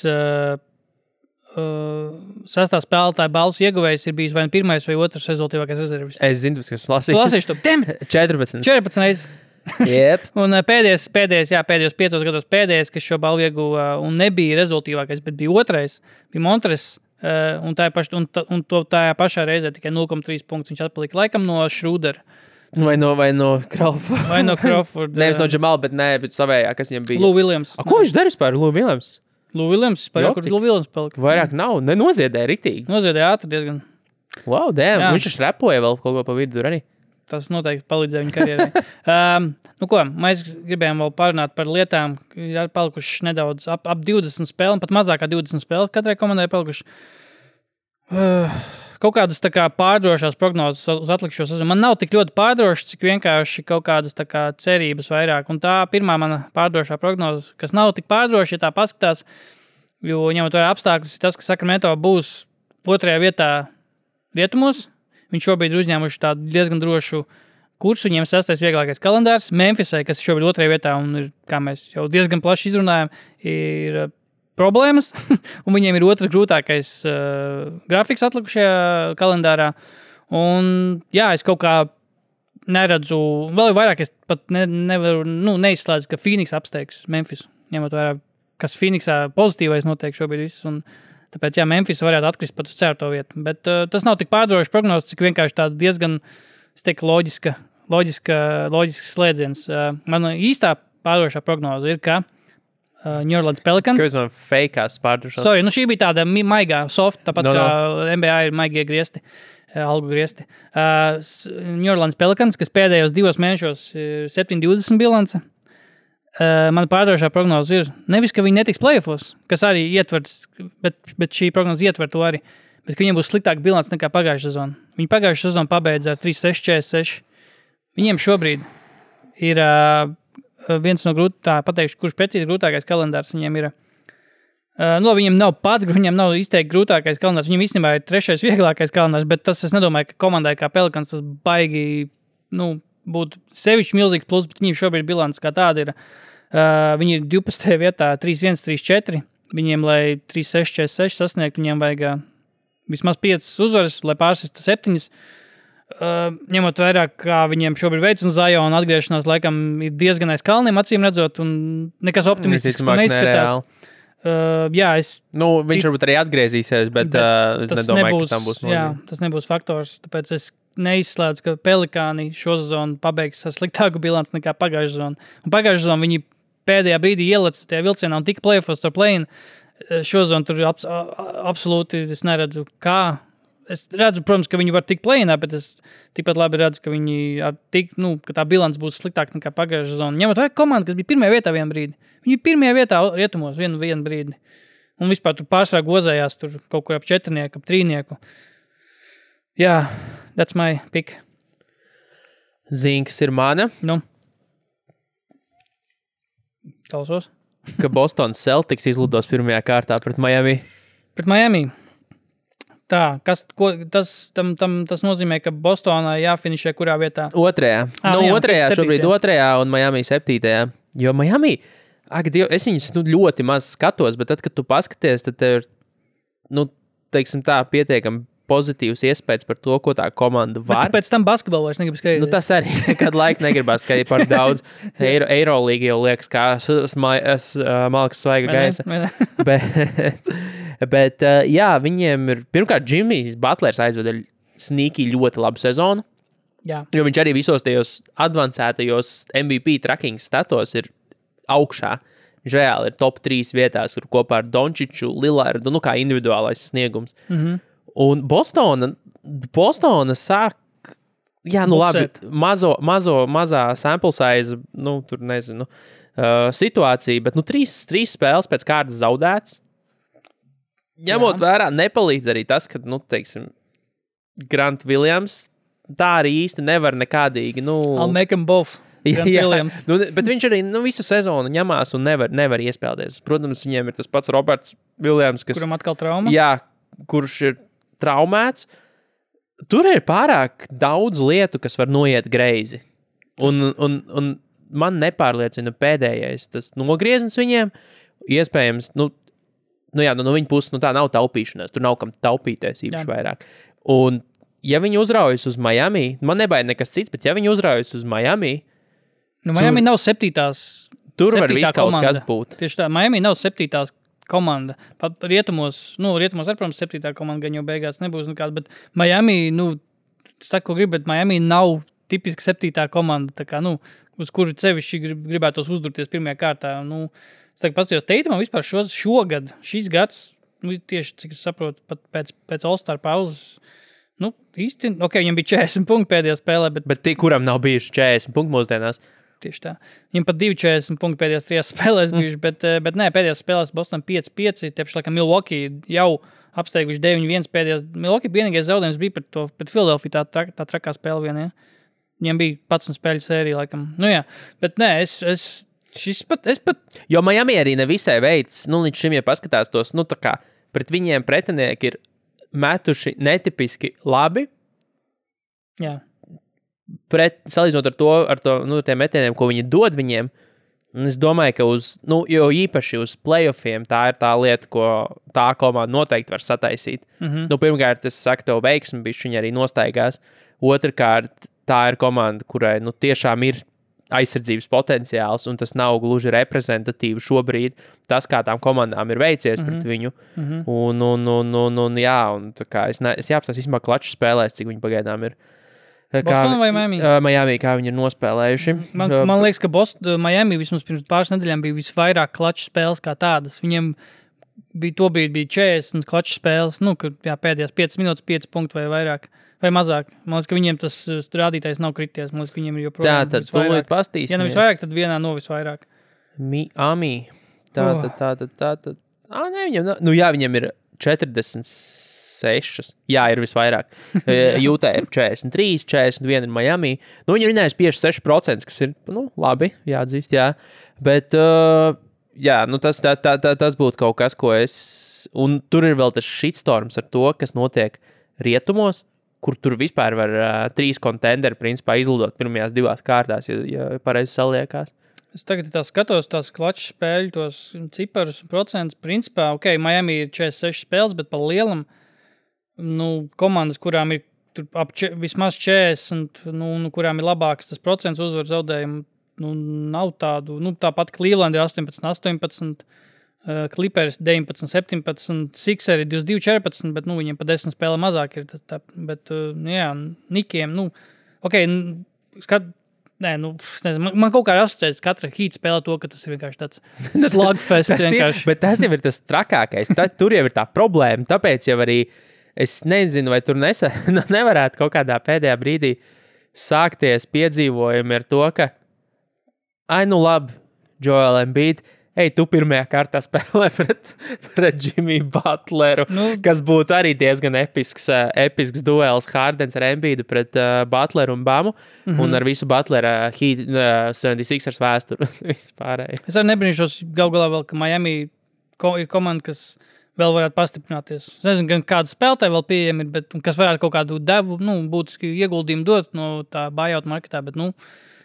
D: sastā spēlētāja balvas ieguvējs ir bijis vai pirmais vai otrs rezultīvākais rezervists?
C: Es zinu, kas lasīju.
D: Lasīšu to. 14 reizes.
C: Yep.
D: Un pēdējos 5 gados pēdējais, kas šo balvu ieguva un nebija rezultīvākais, bet bija otrais, bija Montres, un tajā pašā reizē tikai 0,3 punktus viņš atpalika laikam no Schrödera.
C: Vai no Crawford.
D: Vai no Crawford.
C: Nevis no Jamal, bet savējā, kas viņam bija.
D: Lou Williams.
C: Ko viņš darīs par Lou Williams?
D: Lou Williams, kur Lou Williams palika.
C: Vairāk nav, nenoziedēja riktīgi.
D: Noziedēja ātri diezgan.
C: Wow, damn, viņš šrepoja vēl kaut ko pa vidu arī.
D: Tas noteikti palīdzēja viņa karjerai. Mēs gribējām vēl parunāt par lietām, ir palikuši nedaudz ap 20 spēlēm, pat mazākā 20 spēles katrai komandai palikuši. Kaut kādas tā kā pārdrošās prognozes uz atlikušo sezonu. Man nav tik ļoti pārdrošas, cik vienkārši kaut kādas tā kā cerības vairāk. Un tā pirmā mana pārdrošā prognoze, kas nav tik pārdroša, ja tā paskatās, jo ņemot vērā apstākļus, ir tas, ka Sacramento būs 2. vietā rietumos. Viņš šobrīd ir uzņēmuši tādu diezgan drošu kursu, viņiem 6. vieglākais kalendārs. Memphisai, kas šobrīd 2. vietā un ir, kā mēs jau diezgan plaši izrunājam, ir problēmas, un viņiem ir 2. grūtākais grafiks atlikušajā kalendārā. Un, jā, es kaut kā neredzu, vēl vairāk es pat nevaru, neizslēdzu, ka Phoenix apsteigs Memphis, ņemot vērā, kas Phoenixā pozitīvais notiek šobrīd viss, un tāpēc, jā, Memphis varētu atkrist pat uz 4. vietu. Bet tas nav tik pārdrošs prognozes, cik vienkārši tāda diezgan, es teiktu, loģisks slēdziens. Mana īstā pārdrošā prognoze ir, ka New Orleans Pelicans.
C: Kāpēc man fakeās pārdrošās?
D: Sorry, šī bija tāda maigā, soft, tāpat kā NBA ir maigie griesti, algu griesti. New Orleans Pelicans, kas pēdējos 2 mēnešos 7-20 bilance. Mana pārdrošā prognoze ir nevis, ka viņi netiks playoffos, kas arī ietver, bet šī prognoze ietver to arī, bet ka viņiem būs sliktāka bilance nekā pagājušā sezona. Viņi pagājušā sezona pabeidza ar 3-6-46. Viņiem šobrīd ir viens no pateikšu, kurš precīzi grūtākais kalendārs viņiem ir. Viņiem nav pats, viņiem nav izteikti grūtākais kalendārs. Viņiem īstenībā ir 3. vieglākais kalendārs, bet tas es nedomāju, ka komandai kā Pelicans tas baigi, būtu sevišķi milzīgs plus, bet viņiem šobrīd bilants kā tāda ir. Viņi ir 12. vietā 3-1-3-4. Viņiem, lai 3-6-4-6 sasniegt, viņiem vajag vismaz 5 uzvaras, lai pārsistu 7. Ņemot vairāk, kā viņiem šobrīd veids, un Ziona atgriešanās laikam ir diezgan aiz kalniem, acīm redzot, un nekas optimistisks neizskatās.
C: Viņš varbūt arī atgriezīsies, bet es nedomāju, ka tam būs nozīme.
D: Jā, tas nebūs faktors, tāpēc es neizslēdzu, ka Pelikāni šo sezonu pabeigs ar sliktāku bilanci nekā pagājušā sezonu. Un pagājušā sezonu viņi pēdējā brīdī ielec tajā vilcienā un tika play-offos ar play-in. Šo sezonu tur absolūti es neredzu, kā. Es redzu, protams, ka viņi var tikt play-inā, bet es tikpat labi redzu, ka viņi ka tā bilants būs sliktāka nekā pagājušā sezona. Ņemot vajag komandu, kas bija pirmajā vietā vienu brīdi. Viņi bija pirmajā vietā rietumos vienu brīdi. Un vispār tur pārsvarā gozējās tur kaut kur ap 4, ap 3. Jā, that's my pick.
C: Zinks ir mana.
D: Nu. Klausos.
C: Ka Boston Celtics izlidos pirmajā kārtā pret Miami.
D: Pret Miami. Tā, tas nozīmē, ka Bostonā jāfinišē kurā vietā?
C: Otrajā. Otrajā šobrīd otrajā un Miami 7. Jo Miami, es viņus ļoti maz skatos, bet tad, kad tu paskaties, tad tev ir, teiksim tā, pietiekami pozitīvs iespējas par to, ko tā komanda var.
D: Bet pēc tam basketbolu vairs negribu skatīties.
C: Tas arī nekad laika negribas skatīties par daudz. Eirolīga jau liekas, kā malkas svaiga gaisa. Bet jā, viņiem ir, pirmkārt, Jimmys Butlers aizveda sneaky ļoti labu sezonu.
D: Jā.
C: Jo viņš arī visos tajos advancētajos MVP tracking statos ir augšā. Viņš reāli ir top 3 vietās, kur kopā ar Dončiču, Lillardu, kā individuālais sniegums. Un Bostona sāk, labi, mazā sample size, tur nezinu, situācija, bet 3 spēles pēc kārtas zaudēts. Ņemot vērā, nepalīdz arī tas, ka, teiksim, Grant Williams tā arī īsti nevar nekādīgi,
D: I'll make them both.
C: Bet viņš arī visu sezonu ņemās un nevar iespēlēties. Protams, viņiem ir tas pats Roberts Williams,
D: kuram atkal trauma.
C: Jā, kurš ir traumēts. Tur ir pārāk daudz lietu, kas var noiet greizi. Un man nepārliecina pēdējais tas nogrieznis viņiem. Iespējams, no viņa puses, tā nav taupīšanās. Tur nav kam taupīties īpaši vairāk. Un ja viņi uzraujas uz Miami, man nebaida nekas cits, bet ja viņi uzraujas uz Miami,
D: Miami nav 7.
C: Tur var viss kaut kas būt.
D: Tieši tā, Miami nav 7. komanda. Pat rietumos, arī, protams, 7. komanda gan jau beigās nebūs nekāda, bet Miami, saku, ko grib, bet Miami nav tipiski 7. komanda, tā kā, uz kuru sevišķi gribētos uzdurties pirmajā kārtā. Es tagad paskatījos Teitumam vispār šogad, šis gads, tieši, cik es saprotu, pat pēc All-Star pauzes, īsti, viņam bija 40 punkti pēdējā spēlē,
C: bet kuram nav bijuši 40 punkti mūsdienās?
D: Tieši tā. Viņam pat 2,40 punkti pēdējās 3 spēlēs bijuši, bet nē, pēdējās spēlēs Boston 5-5, tepši laikam Milwaukee jau apsteiguši 9-1 pēdējās. Milwaukee vienīgais zaudējums bija pret Philadelphia, tā trakā spēle vien, ja? Viņam bija 11 spēļu sērija, laikam. Bet nē, es pat...
C: Jo Miami arī nevisai veids, līdz šim, ja paskatās tos, tā kā pret viņiem pretinieki ir metuši netipiski labi.
D: Jā.
C: Salīdzinot ar tiem metieniem, ko viņi dod viņiem, es domāju, ka jo īpaši uz playoffiem tā ir tā lieta, ko tā komanda noteikti var sataisīt. Pirmkārt, es saku, tev veiksmi, bišķiņi arī nostaigās. Otrkārt, tā ir komanda, kurai tiešām ir aizsardzības potenciāls, un tas nav gluži reprezentatīvi šobrīd. Tas, kā tām komandām ir veicies pret viņu. Tā kā es jāapstās īstenībā klaču spēlēs, cik viņi pagaidām ir.
D: Boston vai Miami?
C: Miami, kā viņi ir nospēlējuši.
D: Man liekas, ka Miami vismaz pirms pāris nedēļām bija visvairāk klaču spēles kā tādas. Viņiem bija 40 klaču spēles, pēdējās 5 minūtes, 5 punkti vai vairāk. Vai mazāk. Man liekas, ka viņiem tas rādītājs nav krities. Man liekas, ka viņiem ir joprojām
C: visvairāk. Tā, tad tūlīt pastīsimies.
D: Ja nevis vairāk, tad vienā no visvairāk.
C: Miami. Tā. Viņiem ir 46. Jā, ir visvairāk. Jūtā ir 43, 41 ir Miami. Viņi ir runājuši 56%, kas ir, labi, jāatzīst, jā. Bet, tas būtu kaut kas, ko es... Un tur ir vēl tas shitstorms ar to, kas notiek rietumos, kur tur vispār var 3 kontenderi, principā, izlidot pirmajās 2 kārtās, ja pareizi saliekās.
D: Es tagad skatos tās klaču spēļu, tos ciparus, procentus. Principā, Miami ir 46 spēles, bet pa lielam, komandas, kurām ir vismaz 40, kurām ir labāks tas procents uzvaru zaudējumu, nav tādu. Tāpat Cleveland ir 18. Clippers 19, 17, Sixeri 22, 14, bet, viņiem pa 10 spēlē mazāk ir. Bet, Nikiem, man kaut kā asociēts katra Heat spēlē to, ka tas ir vienkārši tāds slugfests.
C: Bet tas jau ir tas trakākais. Tur jau ir tā problēma. Tāpēc jau arī es nezinu, vai tur nevarētu kaut kādā pēdējā brīdī sākties piedzīvojumi ar to, ka labi, Joel Embiid, tu pirmajā kārtā spēlē pret Jimmy Butleru, kas būtu arī diezgan episks duels Hardens ar Embiidu pret Butleru un Bamu, un ar visu Butlera 76ers vēsturu vispārēji.
D: Es arī nebrīnīšos galā vēl, ka Miami ir komanda, kas vēl varētu pastiprināties. Es nezinu, gan kāda spēlētāja vēl pieejama ir, bet kas varētu kaut kādu devu, būtiski ieguldījumu dot no tā buyout marketā, bet,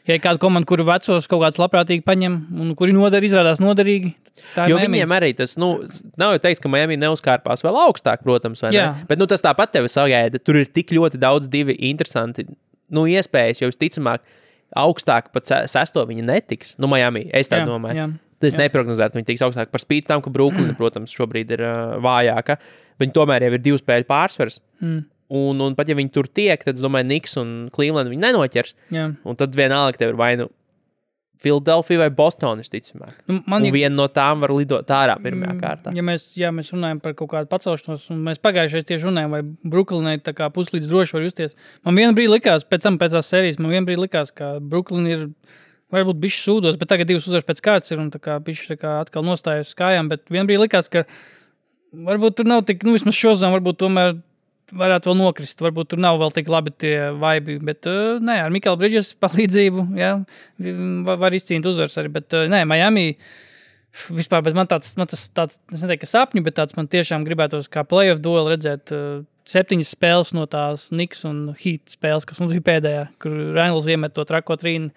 D: ja ir kāda komanda, kuru vecos kaut kāds labprātīgi paņem, un kuri izrādās noderīgi, tā ir
C: jo
D: Miami.
C: Viņiem arī tas, nav jau teiks, ka Miami neuzkārpās vēl augstāk, protams, vai ne? Bet, tas tāpat tevi sagaida. Tur ir tik ļoti daudz divi interesanti, iespējas, jo visticamāk augstāk pat 6. viņi netiks. Miami, es tā domāju. Es neprognozētu, viņi tiks augstāk par spīti tam, ka Brooklyn, protams, šobrīd ir vājāka. Viņi tomēr jau ir 2 spēļu pārsvars. Un pat ja viņi tur tiek, tad es domāju, Knicks un Cleveland viņi nenoķers. Un tad vienalga tev ir vai Philadelphia vai Boston, visticamāk. Viena no tām var lidot ārā pirmajā kārtā.
D: Ja mēs runājam par kaut kādu pacelšanos, un mēs pagājušais tieši runājam, vai Brooklynai tā kā puslīdz droši var justies. Man vienbrīd likās, pēc tās sērijas, ka Brooklyn ir varbūt bišķi sūdos, bet tagad 2 uzvaras pēc kārtas ir un tā kā bišķi atkal nostājas uz kājām, bet vienbrīd likās, ka varbūt tur nav tik, vismaz šozām varbūt tomēr varētu vēl nokrist, varbūt tur nav vēl tik labi tie vibi, bet ar Mikala Bridges palīdzību, var izcīnīt uzvaras arī, bet Miami vispār, bet man tāds, es neteiktu, ka sapņu, bet tāds man tiešām gribētos kā playoff dueli redzēt 7 spēles no tās Knicks un Heat spēles, kas mums bija pēdējā, kur Reynolds iemet to trako trīnu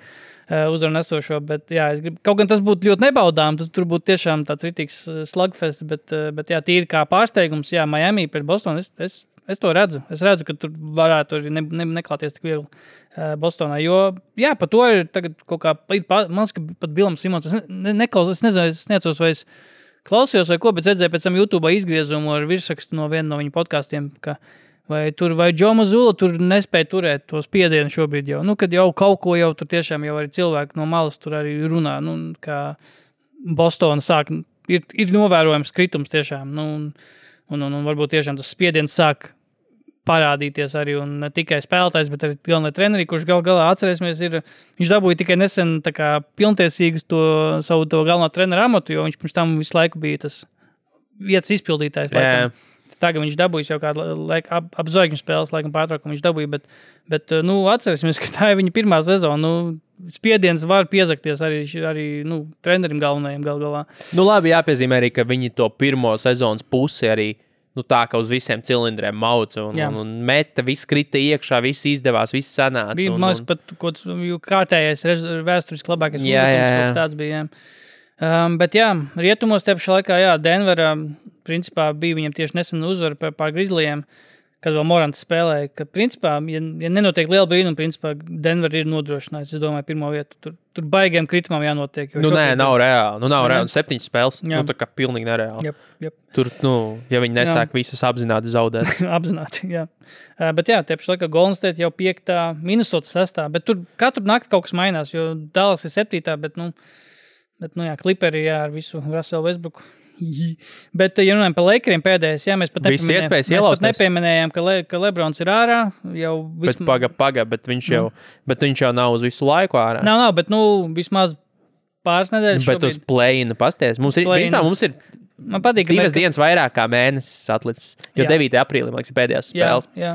D: uzvaru nesošo, bet es gribu, kaut gan tas būtu ļoti nebaudām, tur būtu tiešām tāds ritīgs slugfest, bet tīri kā pārsteigums, Miami pret Bostonu, es to redzu. Es redzu, ka tur varētu arī neklāties tik viegli Bostonā, jo, par to ir tagad kaut kā, man liekas, ka pat Bilam Simons, es neatceros, vai es klausījos vai ko, bet redzēju pēc tam YouTube izgriezumu ar virsrakstu no viena no viņa podkastiem, ka vai Joe Mazzulla tur nespēja turēt to spiedienu šobrīd jau, kad jau kaut ko jau tur tiešām jau arī cilvēki no malas tur arī runā, kā Bostona sāk, ir novērojams kritums tiešām, un varbūt tiešām tas spiediens sāk parādīties arī, un ne tikai spēlētājs, bet arī galvenai treneri, kurš galā atcerēsimies, viņš dabūja tikai nesen tā kā pilntiesīgas savu galvenā trenera amatu, jo viņš pirms tam visu laiku bija tas vietas izpildītājs. Tagad viņš dabūja jau kādu laiku ap zvaigžņu spēles, laikam pārtraukumu viņš dabūja, bet atcerēsimies, ka tā ir viņa pirmā sezona, spiediens var piezakties arī trenerim galvenajiem galā.
C: Labi, jāpiezīmē arī, ka viņi to pirmo sezonas pusi arī tā, ka uz visiem cilindriem mauca un meta, viss krita iekšā, viss izdevās, viss sanāca.
D: Bija, man liekas, pat kārtējais vēsturiski labākais uzbrukums, tāds bija, bet rietumos te pašā laikā, Denverā, principā bija viņam tieši nesen uzvara pār Grizzlyiem, kad vēl Morants spēlēja, ka principā, ja nenotiek liela brīnuma, principā Denver ir nodrošinājis, es domāju, pirmo vietu. Tur baigiem kritumam jānotiek.
C: Nav reāli. Nav reāli. 7 spēles, tā kā pilnīgi nereāli.
D: Jep.
C: Tur, ja viņi nesāk visas apzināti zaudēt.
D: Apzināti, jā. Bet te pašā laikā Golden State jau 5. Minnesota 6. Bet tur katru nakti kaut kas mainās, jo Dallas ir 7. Bet Clipperi, ar visu Russell Westbrooku. Bet, ja runājam par Lakeriem pēdējais, mēs pat nepieminējām, ka Lebrons ir ārā.
C: Bet paga, bet viņš jau nav uz visu laiku ārā.
D: Nav, bet vismaz pāris nedēļas
C: bet
D: šobrīd.
C: Uz play-inu pasties. Mums ir
D: man patīk,
C: 2 dienas vairāk kā mēnesis atlicis, jo 9. aprīlī, man liekas, pēdējās spēles.
D: Jā.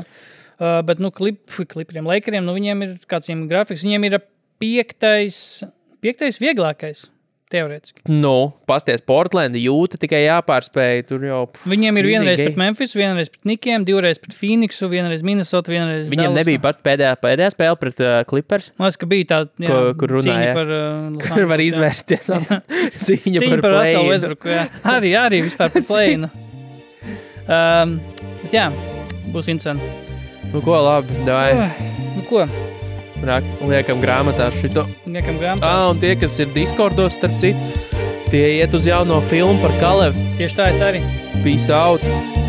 D: Bet, Clipperiem, Lakeriem, viņiem ir kāds grafiks, viņiem ir 5. vieglākais. Teorētiski.
C: Pasties, Portlandi, Jūta tikai jāpārspēj, tur jau...
D: Viņiem ir vienreiz pret Memphis, vienreiz pret Nikiem, 2 reiz pret Phoenixu, vienreiz Minnesota, vienreiz
C: Viņiem
D: Dallasu.
C: Nebija pat pēdējā spēle pret Clippers.
D: Man liekas, ka bija tā,
C: kur runāja,
D: cīņa par...
C: kur var izvērsties. Cīņa par
D: Russell Westbrooku, arī vispār par play-inu. Bet būs interesanti.
C: Ko, labi, davai.
D: Ko?
C: Liekam grāmatā šito.
D: Liekam grāmatā.
C: Un tie, kas ir Discordos, starp citu, Tie iet uz jauno filmu par Kalevu.
D: Tieši tā es arī.
C: Peace out!